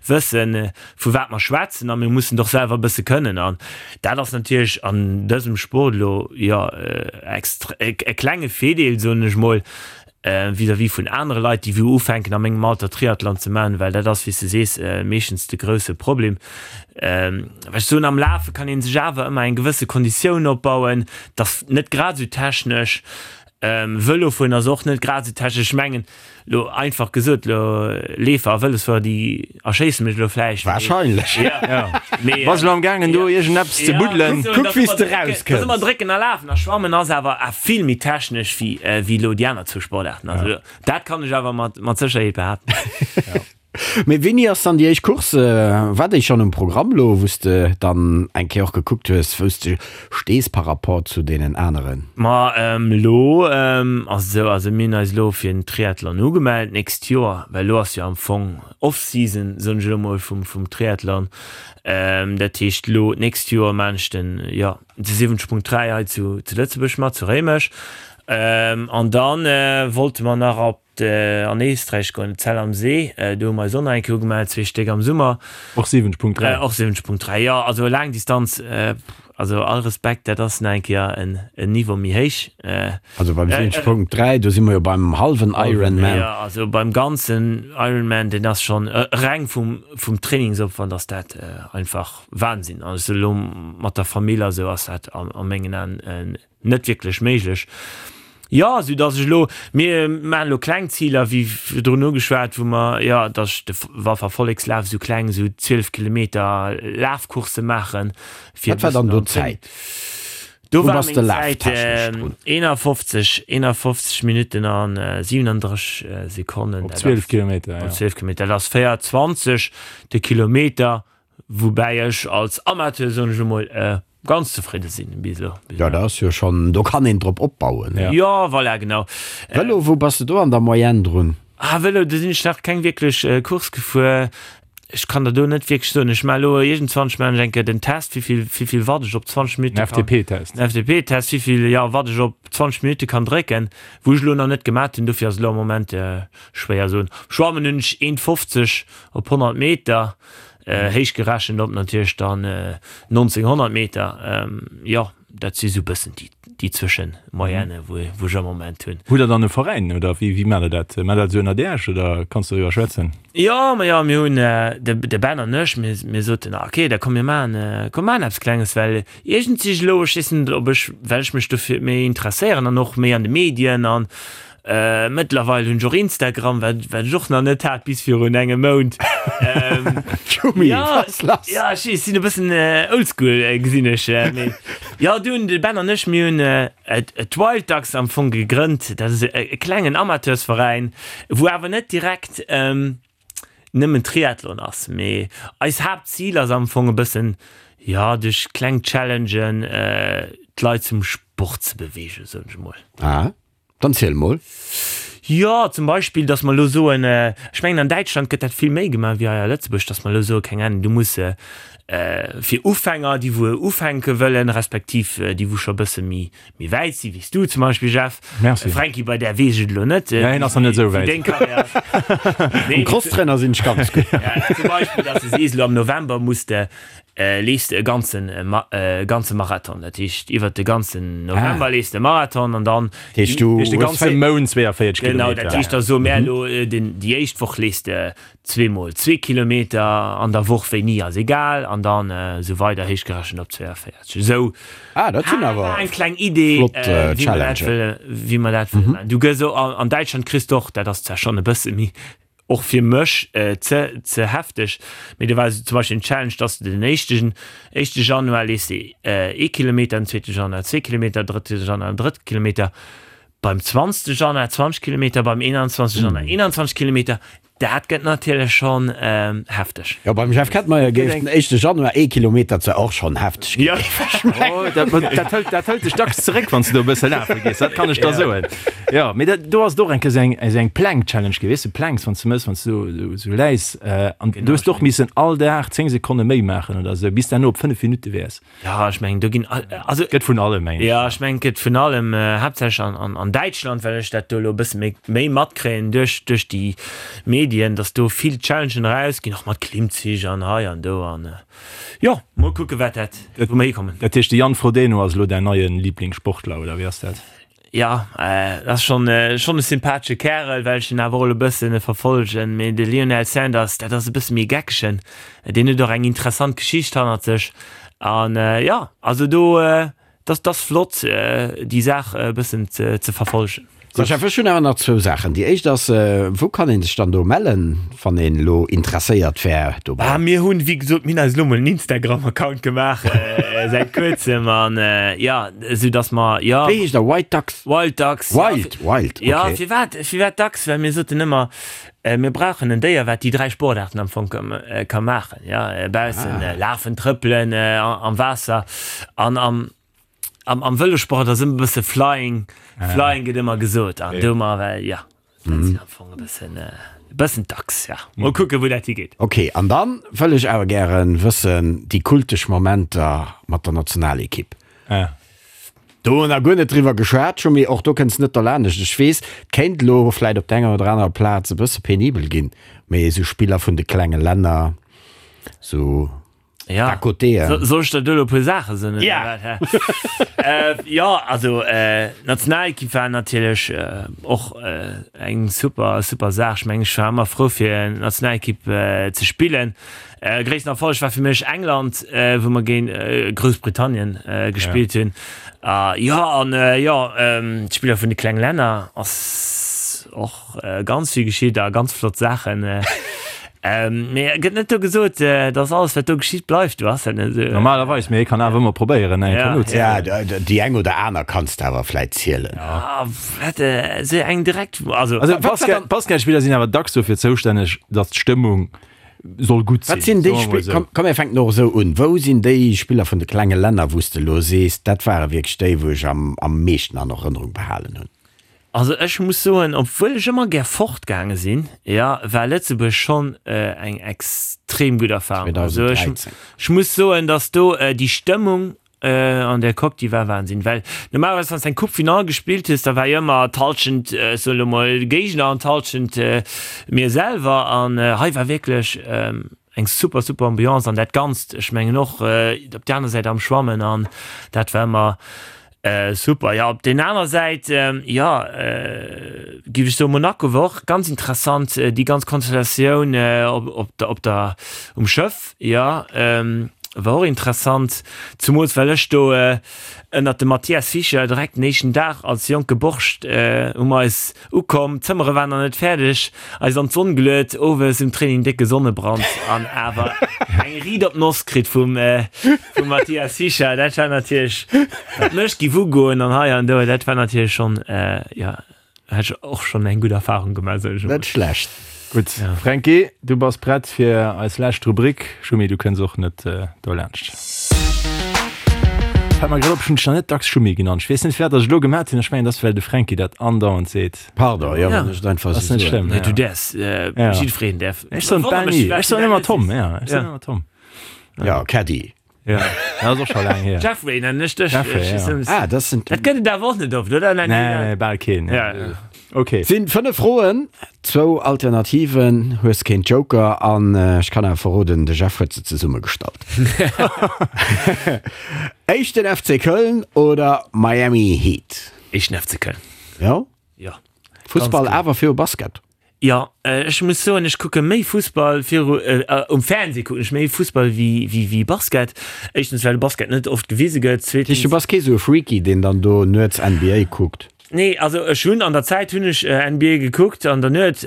wëssen, vu wat mer schwätzen a mir mussen et och selwer e bësse kënnen. An dat ass natierlech an dësem Sport elo, jo, extre-, e klenge Virdeel, soen ech mol. Vis-à-vis vun anere Leit, déi wou ufänken a mengem Alter Triathlon ze maachen, well dat ass, wéi s de sees, meeschtens de grousse Problem. Well ech soen, am Lafe kann ee sech awer ëmmer eng gewësse Konditioun opbauen, 't ass net grad esou technesch. Vëlo fueren ass och net grad esou technesch. Ech mengen, lo einfach gesot, lo Leefer a Vëlosfuerer, déi erschéisse mech elo vläicht. Wahrscheinlech. Mee Bass elo am gaangen do iergendeppes ze buddelen? Kuck wéi s de rauskënns. Ass ëmmer drécken a lafen a schwammen ass awer vill méi technesch wéi wéi elo déi aner zwou Sportaarten. Also dat kann ech awer mat mat Sécherheet behaapten. Mee wéini ass dann déi éischt Course? War déi schonn um Programm elo, wou s de dann eng Kéier och gekuckt hues, wou s de stees par rapport zu deenen aneren? Ma elo ass et esou, also mir hunn eis elo fir den Triathlon ugemellt d'nächst Joer, well elo ass jo am Fong Off-Season, soen ech elo mol, vum vum Triathlon. Dat heescht elo d'nächst Joer maan ech den, jo, de 70.3 hei zu zu Lëtzebuerg mat, zu Réimech. An dann wollte mer nach op an Éisträich goen, Zell am See, do hu mer eis och nach eng Kéier ugemellt, zwee Stéck am Summer. Och 70.3? Och 70.3, jo. Also Laangdistanz, also all Respekt, dat ass nach eng Kéier en Niveau méi héich. Also beim 70.3, do si mer jo beim hallwen Ironman. Jo, also beim ganzen Ironman, deen ass schonn reng vum vum Trainingsopwand ass dat einfach Wahnsinn. Also elo mat der Famill a sou ass dat a mengen Aen Net wierklech méiglech. Jo, sou datt ech elo, mir maachen elo kleng Ziler, wéi virdrun ugeschwat, wou mer, jo, datt ech de Walfer Vollekslaf, esou kleng, esou 12 Kilometer Lafcoursse maachen, fir e Wat war dann do d'Zäit? Do war meng Zäit 51, 51 Minutten an 37 Sekonnen. Op 12 Kilometer, jo. Op 12 Kilometer, dat ass 4,20 de Kilometer. Woubäi ech als Amateur, soen ech emol, ganz zefridde sinn bis elo. Jo, dat ass jo schonn, do kann een drop opbauen. Jo, voilà, genau. Vëlo, wou bass de do an der Moyenne drun? Ah, Vëlo, do sinn ech nach keng wierklech Course gefuer. Ech kann der do net wierklech soen. Ech maache elo iergendwann, ech maachen ech eng Kéier den Test, wéi vill, wéi vill Watt ech op 20 Minutte kann. Den FTP-Test. Den FTP-Test, wéi vill, jo, Watt ech op 20 Minutte kann drécken, wou ech elo nach net gemat hunn. Dofir ass elo am Moment schwéier soen. Schwammen hunn ech 1,50 op 100 Meter. Héich gerechent op natierlech dann 1900 Meter. Jo, dat si sou bëssen déi, déi Zwëschenmoyenne, wou, wou ech am Moment hunn. Hutt Der dann e Veräin oder wéi, wéi maacht Der dat? Maacht Der dat esou ënnert Iech oder kanns du doriwwer schwätzen? Jo, ma jo, mir hunn, de, de Ben an ech, mir, mir soten, ah okay, da komm mir maachen, komm maachen eppes Klenges, well iergendwéi elo, ech weess net, ob ech, well ech mech dofir méi interesséieren an och méi an de Medien an, Mëttlerweil hunn ech och Instagram, wat wat ech och nach net hat bis virun engem Mount. Tschumi, Ja, wat ass lass? ja, ech weess, sinn e bëssen oldschool, gesinn ech. Mee jo, du hunn de Ben an ech, mir hunn d'Wild Ducks am Fong gegrënnt. Dat ass e klengen Amateursveräin, wou awer net direkt nëmmen Triathlon ass, mee eis Haaptzil ass am Fong e bëssen, jo, duerch kleng Challengen d'Leit zum Sport ze beweegen, soen ech emol. Ah. Dann ziel mol. Jo, zum Beispill, datt mer elo soen, ech mengen an Däitschland gëtt dat vill méi gemaach wéi hei a Lëtzebuerg, datt mer elo soen, keng Ahnung, du muss fir Ufänger, déi wou ufänke wëllen, respektiv déi wou scho e bësse méi méi wäit si wéi s du zum Beispill, Jeff. Merci. Franky, bei där weess ech et elo net. Ja, hien ass nach net esou wäit. Wéi deng Karriär ass. Um Crosstrainer sinn ech ganz gutt. Zum Beispill, datt s de sees, elo am November muss de leefs de e ganzen e ganze Marathon, dat heescht iwwert de ganzen November leefs de e Marathon an dann Dat heescht du de ganze Mount 42 Kilometer. Genau, dat heescht da soe mär elo den déi éischt Woch leefs de zweemol zwee Kilometer an der Woch, wéini ass egal, an dann esou weider héichgerechent op 42. Esou Ah, dat sinn awer eng kleng Idee, flott wéi mer dat Challengen. wëlle wéi mer dat wëlle maachen. Du gëss och an Däitschland kriss de och, dat ass zwar schonn e bësse méi Och fir mech ze ze hefteg, mee do war zum Beispill en Challenge, dass de den éischten éischte Januar leefs de ee Kilometer, den zweete Januar zwee Kilometer, drëtte Januar en drëtte Kilometer, beim zwanzegste Januar 20 Kilometer, beim 21 Januar 21 Kilometer. Dat gëtt natierlech schonn hefteg. Jo, beim Jeff Kettmeyer géif den éischte Januar ee Kilometer zwar och schonn hefteg ginn. Oh, dat, dat hëlt, dat hëlt dech dacks zeréck, wann s de do e bësse lafe gees, dat kann ech der soen. Jo, mee dat, do ass et och eng Kéier esou eng, esou eng Plank-Challenge gi, weess de, Planks, wann s de mëss, wann s du esou, esou läis, an do hues de och missen all Dag 10 Sekonne méi maachen oder esou, bis de herno op 5 Minutte wäers. Jo, ech mengen, do ginn, also. Gëtt vun allem, mengen ech. Jo, ech mengen, et gëtt vun allem, haaptsächlech an, an, an Däitschland, well ech dat do elo e bësse méi, méi matkréien duerch, duerch déi Medien, dass do vill Challengen erausginn, och mat Klimmzich an hei an do an, jo, mol kucke wat dat, wou mer hikommen. Dat heescht, de Jan Frodeno ass elo däin neie Liblingssportler, oder wéi ass dat? Jo, dat ass schonn schonn e sympathesche Kärel, well ech en awer och elo e bëssen verfollegen. Mee de Lionel Sanders, dat ass e bësse méi e Geckegen. Deen huet och eng interessant Geschicht hannert sech. An jo, also do, dat ass flott, déi Saach e bëssen ze verfollegen. So Jeff, ech hunn awer nach zwou Saachen. Déi éischt ass, wou kann een sech dann do mellen, wann een elo interesséiert wär dobäi? Ah, mir hunn, wéi gesot, mir hunn eis elo mol en Instagram-Account gemaach säit kuerzem an jo, esou datt mer, jo. Wéi heescht der? White Ducks? Wild Ducks, jo. Wild, Wild, okay. Jo, firwat, firwat Ducks? Well mir soten ëmmer, mir brauchen en Déier, wat déi 3 Sportaarten am Fong ka maachen, jo, baussen lafen, trëppelen, am Waasser an am. Am, am Vëlosport ass ëmmer e bësse Flying, Flying gëtt ëmmer gesot an do mar well ja dat sinn am Fong e bëssen e bëssen d'Achs ja. Mol kucke wou dat higeet. Ok, an dann wëll ech awer gären wëssen déi kultesch Momenter mat der Nationalekipp. Do hu mer guer net driwwer geschwat, Schumi, och do kënns net derlaanescht. Ech weess, et kéint elo vläit op der enger oder anerer Plaz e bësse penibel ginn, mee esou Spiller vun de klenge Länner, esou Ja. À côté, äh. So, soll ech der do elo e puer Saache soen, oder Ja. wat, hä? Äh, jo, also äh, d'Nationalekipp war natierlech äh, och äh, eng super, super Saach. Ech mengen, ech war ëmmer frou fir Nationalekipp äh, ze spillen. Äh, gréissten Erfolleg war fir mech England, äh, wou mer géint äh, Groussbritannien äh, gespillt hunn. A jo, an äh, jo, ähm, d'Spiller vun de klenge Länner ass och Ganz vill geschitt a ganz flott Saachen. Mee gëtt net do gesot, dass alles wat do geschitt bleift do? Ass dat net esou? Normalerweis, mee ee kann awer ëmmer probéieren eng Kanot ze Ja, déi eng oder aner kanns de awer vläit zielen. Ah, wat esou eng direkt, also. Also Basketspiller sinn awer dacks dofir zoustänneg, dass d'Stëmmung soll gutt sinn. Wat sinn déi Spiller, komm, komm mir fänken och esou un, wou sinn déi Spiller vun de klenge Länner, wou s de elo sees, dat ware wierklech déi, wou ech am am meeschten an Erënnerung behalen hunn? Also ech muss soen, obwuel ech ëmmer gär fortgaange sinn, jo, war Lëtzebuerg schonn eng extrem gutt Erfahrung. Also ech, 2013. ech muss soen, datt do déi Stëmmung an der Coque, déi war Wahnsinn. Well normalerweis, wann s de eng Coupe Finale gespillt hues, da war jo ëmmer d'Hallschent, ech soen elo mol, Géigner an d'Hallschent mir selwer. An hei war wierklech eng super, super Ambiance an dat Ganzt, ech mengen och op där aner Säit am Schwammen an dat war ëmmer super. Jo, op den aner Säit, jo, géif ech soen, Monaco war och ganz interessant, déi ganz Konstellatioun op der, op der, um Schëff, jo, war och interessant, zumools well ech do ënnert dem Mathias Fischer direkt den éischten Dag als jonke Borscht hu mer eis Ukomm, d'Zëmmere waren nach net fäerdeg, eis an d'Sonn geluet, owes um Training décke Sonnebrand an awer eng riit op d'Noss kritt vum vum Mathias Fischer. Dat war natierlech, wat mech giff ugoen an hei an do, dat war natierlech schonn, jo, hat ech och schonn eng gutt Erfahrung gemaach, soen ech emol. Net schlecht. Gutt, Fränki, du bass prett fir eis lescht Rubrik. Schumi, du kënns och net dolaanscht. Fällt mer grad op, ech hunn dech nach net dacks Schumi genannt. Ech weess net, firwat ech et elo gemat hunn. Ech mengen, et ass, well de Fränki dat andauernd seet. Pardon, jo, wann ech et einfach Ass esou net soen. schlëmm, Nee, du ja. däerfs, Ja. jiddwereen däerf. Ech soen Wonnert bal mech, ni. firwat Ech du soen dat ëmmer net Tom, sees. ja. Ech soen Ja. ëmmer Tom. Ja, Caddy. Ja, dat ass och scho laang hier. Jeffrey nennen ech dech. Jeffrey, Ech ja. weess Ah, dat sinn. Dat gëtt et awer och net oft, oder? Nee, nee, bal keen. Ja. Ok. Sinn 5 Froen, zwou Alternativen, hues keen Joker an ech kann awer verroden, de Jeff huet se zesummegestallt. Éischten FC Köln oder Miami Heat? Éischten FC Köln. Jo? Jo. Fussball awer viru Basket? Jo, ech muss soen, ech kucke méi Fussball viru, um Fernseh kucken ech méi Fussball wéi, wéi, wéi Basket. Éischtens, well de Basket net oft gewise gëtt, Dat heescht, du zweetens. bass kee sou e Freaky, deen dann do nuets NBA kuckt? Nee, also ech hunn an der Zäit hunn ech NBA gekuckt an der Nuet,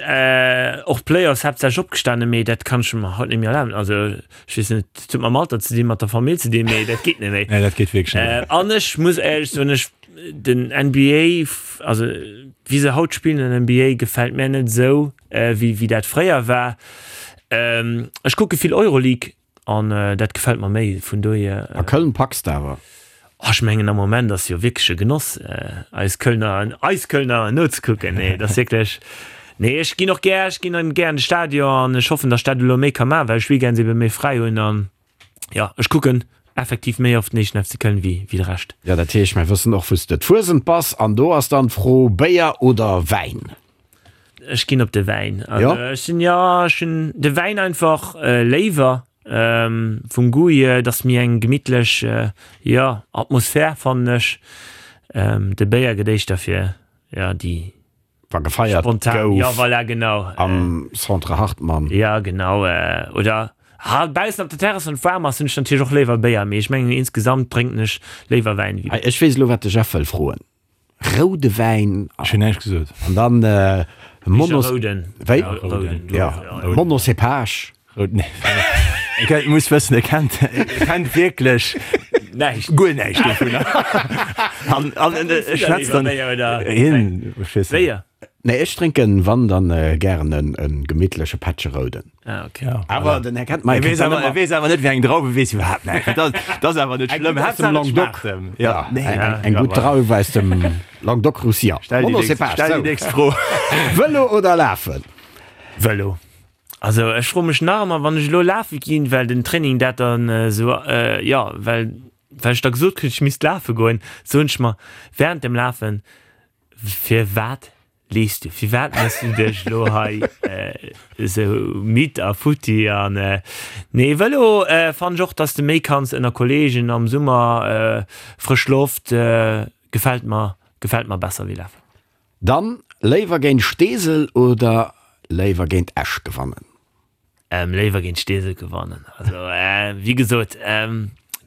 och d'Playoffs haaptsächlech opgestanen, mee dat kann ech mer haut net méi erlaben. Also ech weess net, dat huet mam Alter ze dinn, mat der Famill ze dinn, mee dat geet net méi. Nee, dat geet wierklech net méi. An ech muss éierlech soen, ech, den NBA, also wéi se haut spillen an der NBA gefält mär net esou wéi wéi dat fréier war. Ech kucke vill Euroleague an dat gefält mer méi vun dohier. A Köln packs de awer? Oh ech mengen am Moment ass jo wierklech e Genoss eis Kölner eis Kölner nozekucken. Nee dat ass wierklech, nee ech ginn och gär, ech ginn gär an de Stadion an ech hoffen datt ech dat elo méi ka maachen, well ech Weekends ebe méi fräi hunn an Jo, ech kucken effektiv méi oft den éischten FC Köln wéi wéi de Rescht. Jo, dat heescht, mir wëssen och, wou s de d'Fuesent bass. An do ass dann d'Fro, Béier oder Wäin? Ech ginn op de Wäin. Also ech sinn, jo, ech hunn de Wäin einfach léiwer vum Goût hier. Et ass méi eng gemittlech, jo, Atmosphär, fannen ech. De Béier gëtt éischter fir, jo, déi Wa gefeiert spontan, gouf. Jo, voilà, genau. Am Centre Hartmann. Jo, genau. Oder ha baussen op der Terrass, wann et waarm ass, hunn ech natierlech och léiwer Béier, mee ech mengen insgesamt drénken ech léiwer Wäin ewéi. Hei, ech weess elo, wat de Jeff wëll froen. Roude Wäin. Ech hunn näischt gesot. An dann Monos. Rouden. Wéi? Rouden. Ja, Monocépage. Rouden. Ech muss wëssen, e kennt, e kennt wierklech näischt, guer näischt dovunner. An, an e schwätzt dann. Hien, ech weess net. Béier? Nee, ech drénken, wann, dann gären en gemittleche Pättche Rouden. Ah, okay. Ja. Awer den Här Kentmeier E weess kennt dann awer, e ëmmer. weess awer net, wéi eng Drauf, e weess iwwerhaapt näischt. Dat ass, dat ass awer net Eng schlëmm. gutt aus dem Haaptsaach et Languedoc. schmaacht em. Ja, Ja, nee, eng, ja, eng ja, gutt voilà. Drauf aus dem Languedoc-Roussillon. Stell déi nächst, Monocépage, stell déi sou. nächst Fro. Vëlo oder Lafen? Vëlo. Also ech froe mech nach ëmmer, wann ech elo lafe ginn, well den Training dat dann esou, jo, well well ech da gesot kritt, ech misst lafe goen, soen ech mer während dem Lafen, Firwat leefs du? Firwat méchs du dech elo hei esou midd a futti? An nee, Vëlo fannen ech och, dass de méi kanns ënner Kollegen am Summer, frësch Loft, gefält mer, gefält mer besser wéi lafen. Dann léiwer géint Steesel oder léiwer géint Esch gewannen? Léiwer géint Steesel gewannen. Also wéi gesot,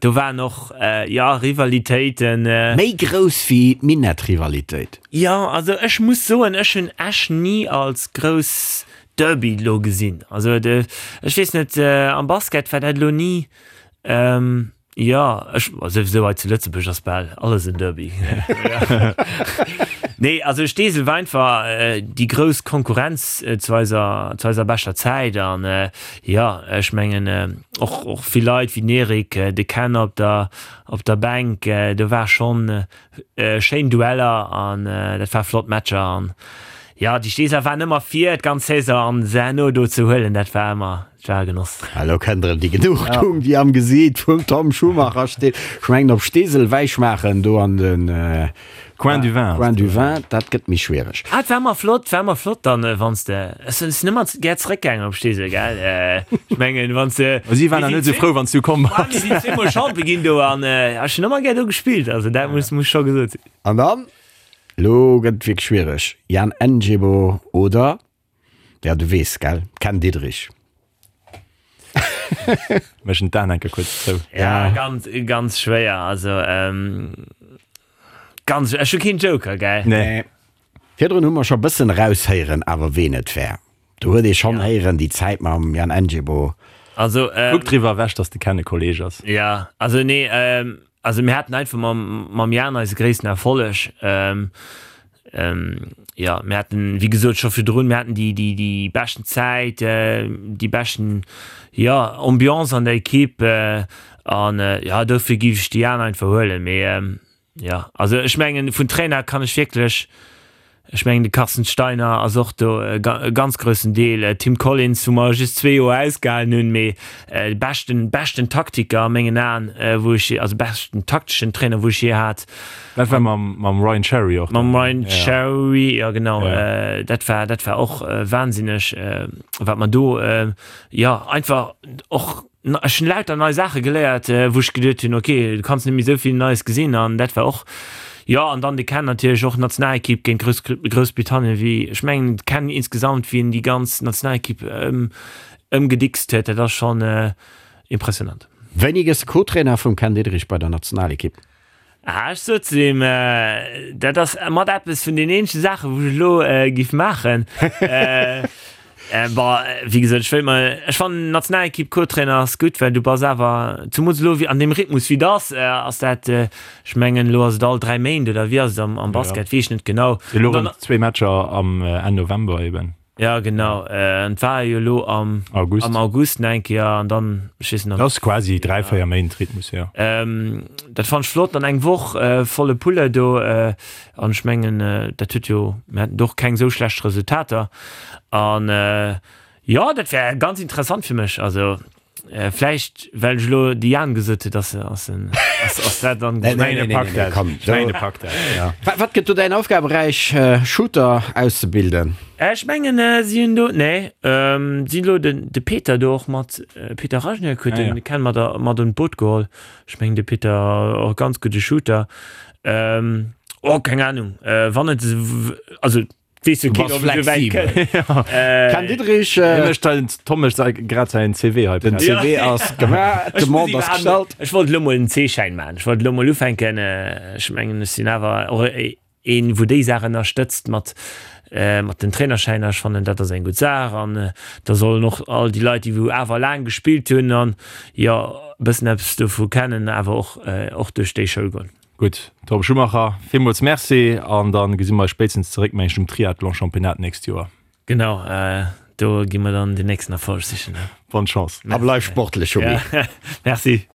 do waren och, jo, Rivalitéiten. Méi grouss wéi d'Minett-Rivalitéit? Jo, also ech muss soen, ech hunn Esch ni als grouss Derby elo gesinn. Also ech weess net, am Basket war dat elo ni. Jo, ech, souwisou hei zu Lëtzebuerg ass bal alles en Derby. Nee, also Steesel war einfach déi grouss Konkurrenz zu eiser, zu eiser beschter Zäit an jo, ech mengen och, och vill Leit wéi den Eric, de Ken op der, op der Bänk, do war schonn schéin Dueller an dat war flott Matcher an jo, déi Steeseler waren ëmmer vir d'ganz Saison an se herno do ze huelen, dat war ëmmer, dat war e Genoss. Elo kënnt erëm déi Genugtuung, déi am Gesiit vum Tom Schumacher steet. Ech mengen op Steesel Wäi schmaachen do an de Coin du Vin. Coin du Vin, dat gëtt méi schwiereg. Ah, et war ëmmer flott, war ëmmer flott dann, wann s de, ech sinn ëmmer gär zeréckgaangen op Steesel, gell, ech mengen wann s de. Ma si waren nach net esou frou, wann s du komm bass. Mir sinn zweemol Champion ginn do an ech hunn ëmmer gär do gespillt, also dat muss, muss scho gesot sinn. An dann, elo gëtt et wierklech schwiereg, Jan Njebo oder, ja du weess, gell, Ken Diederich. Méchen d'Aen enke kuerz zou. Ja, ganz, ganz schwéier, also ganz, ech hu keen Joker, gell? Nee. Virdrun hu mer scho bëssen eraushéieren awer ween et war. Do huet ee schonn héieren déi Zäit mam Jan Njebo. Also, Kuck driwwer ewech, dass de Ken e Kolleg ass. Ja, also nee, also mir haten einfach mam, mam Jan eise gréissten Erfolleg. Jo, mir haten, wéi gesot, scho virdrun, mir haten déi, déi, déi beschten Zäit, déi beschten, jo, Ambiance an der Ekipp an, jo, dofir géif ech déi aner einfach huelen. Mee jo, also ech mengen, vun Trainer kann ech wierklech, ech mengen, de Carsten Steiner ass och do e ganz groussen Deel, Tim Collins, wou mer just zwee Joer ausgehalen hunn, mee de beschten, beschten Taktiker a mengen Aen, wou ech, also beschten takteschen Trainer, wou ech jee hat. Dat war mam, mam Ryan Cherry och. Mam Ryan Cherry, ja genau. Ja. Dat war, dat war och wahnsinneg, wat mer do, jo, einfach och, ech hunn lauter nei Saache geléiert, wou ech geduet hunn, ok, du kanns net méi esou vill Neies gesinn an dat war och, jo, an dann de Ken natierlech och, Nationalekipp géint Grouss, Groussbritannien, wéi, ech mengen de Ken insgesamt, wéi en déi ganz Nationalekipp ëm, ëmgedickst huet, dat ass schonn impressionant. Wéini gëss de Co-Trainer vum Ken Diederich bei der Nationalekipp? Ah, ech sot zu him, dat ass mat eppes vun den eenzege Saachen, wou ech elo giff maachen. Bon, wéi gesot, ech wéilt mer, ech fannen Nationalekipp Co-Trainer ass gutt, well du bass awer, zemools elo wéi an deem Rhythmus wéi et ass, ass dat, ech mengen elo ass et all 3 Méint oder wéi ass et am Basket, weess ech net genau. Elo erëm zwee Matcher am Enn November eben. Ja genau, an et war jo elo am August, am August nach eng Kéier an dann, ech weess net. Dat ass quasi 3, 4 Méint Rhythmus, jo. Dat fannt ech flott, dann eng Woch volle Pulle do an ech mengen dat huet jo, mir haten do och keng esou schlecht Resultater an jo dat wär ganz interessant fir mech, also. Vläicht well ech elo de Jan gesot huet, ass ass en ass ass dat dann. Nee, nee, nee, nee, nee, komm. Ech mengen, e packt dat, ja. Wat gëtt do däin Aufgaberäich, Shooter auszebilden? Ech mengen si hunn do, nee, si hunn elo den de Peter do och mat, Peter Rajnik huet den Ken mat a mat an d'Boot geholl. Ech mengen de Peter och ganz gudde Shooter. Oh, keng Ahnung. Wann et, also weess jo Du keen, bass ob et esou wäit flexibel. kënnt. Ken Diederich, Hie mécht den Tom mécht säi grad säin CV hei den prett. CV ass gemaach, Ech muss d'Demande ass iwwerhaapt gestallt. Ech wollt elo mol en C-Schäin maachen. Ech wollt elo mol ufänken. Ech mengen, ech sinn awer och een, wou déi Saach ënnerstëtzt mat, mat den Trainerschäiner. Ech fannen, dat ass eng gutt Saach. An da sollen och all déi Leit, déi wou awer laang gespillt hunn an, jo, e bëssen eppes dovu kennen, awer och, och duerch déi Schoul goen. Gutt, Tom Schumacher, villmools Merci an da gesi mer eis spéitstens zeréck, mengen ech, um Triathlon-Championnat d'nächst Joer. Genau, do gi mer dann den nächsten Erfolg sichen. Bonne Chance. A bleif sportlech, Schumi. Merci.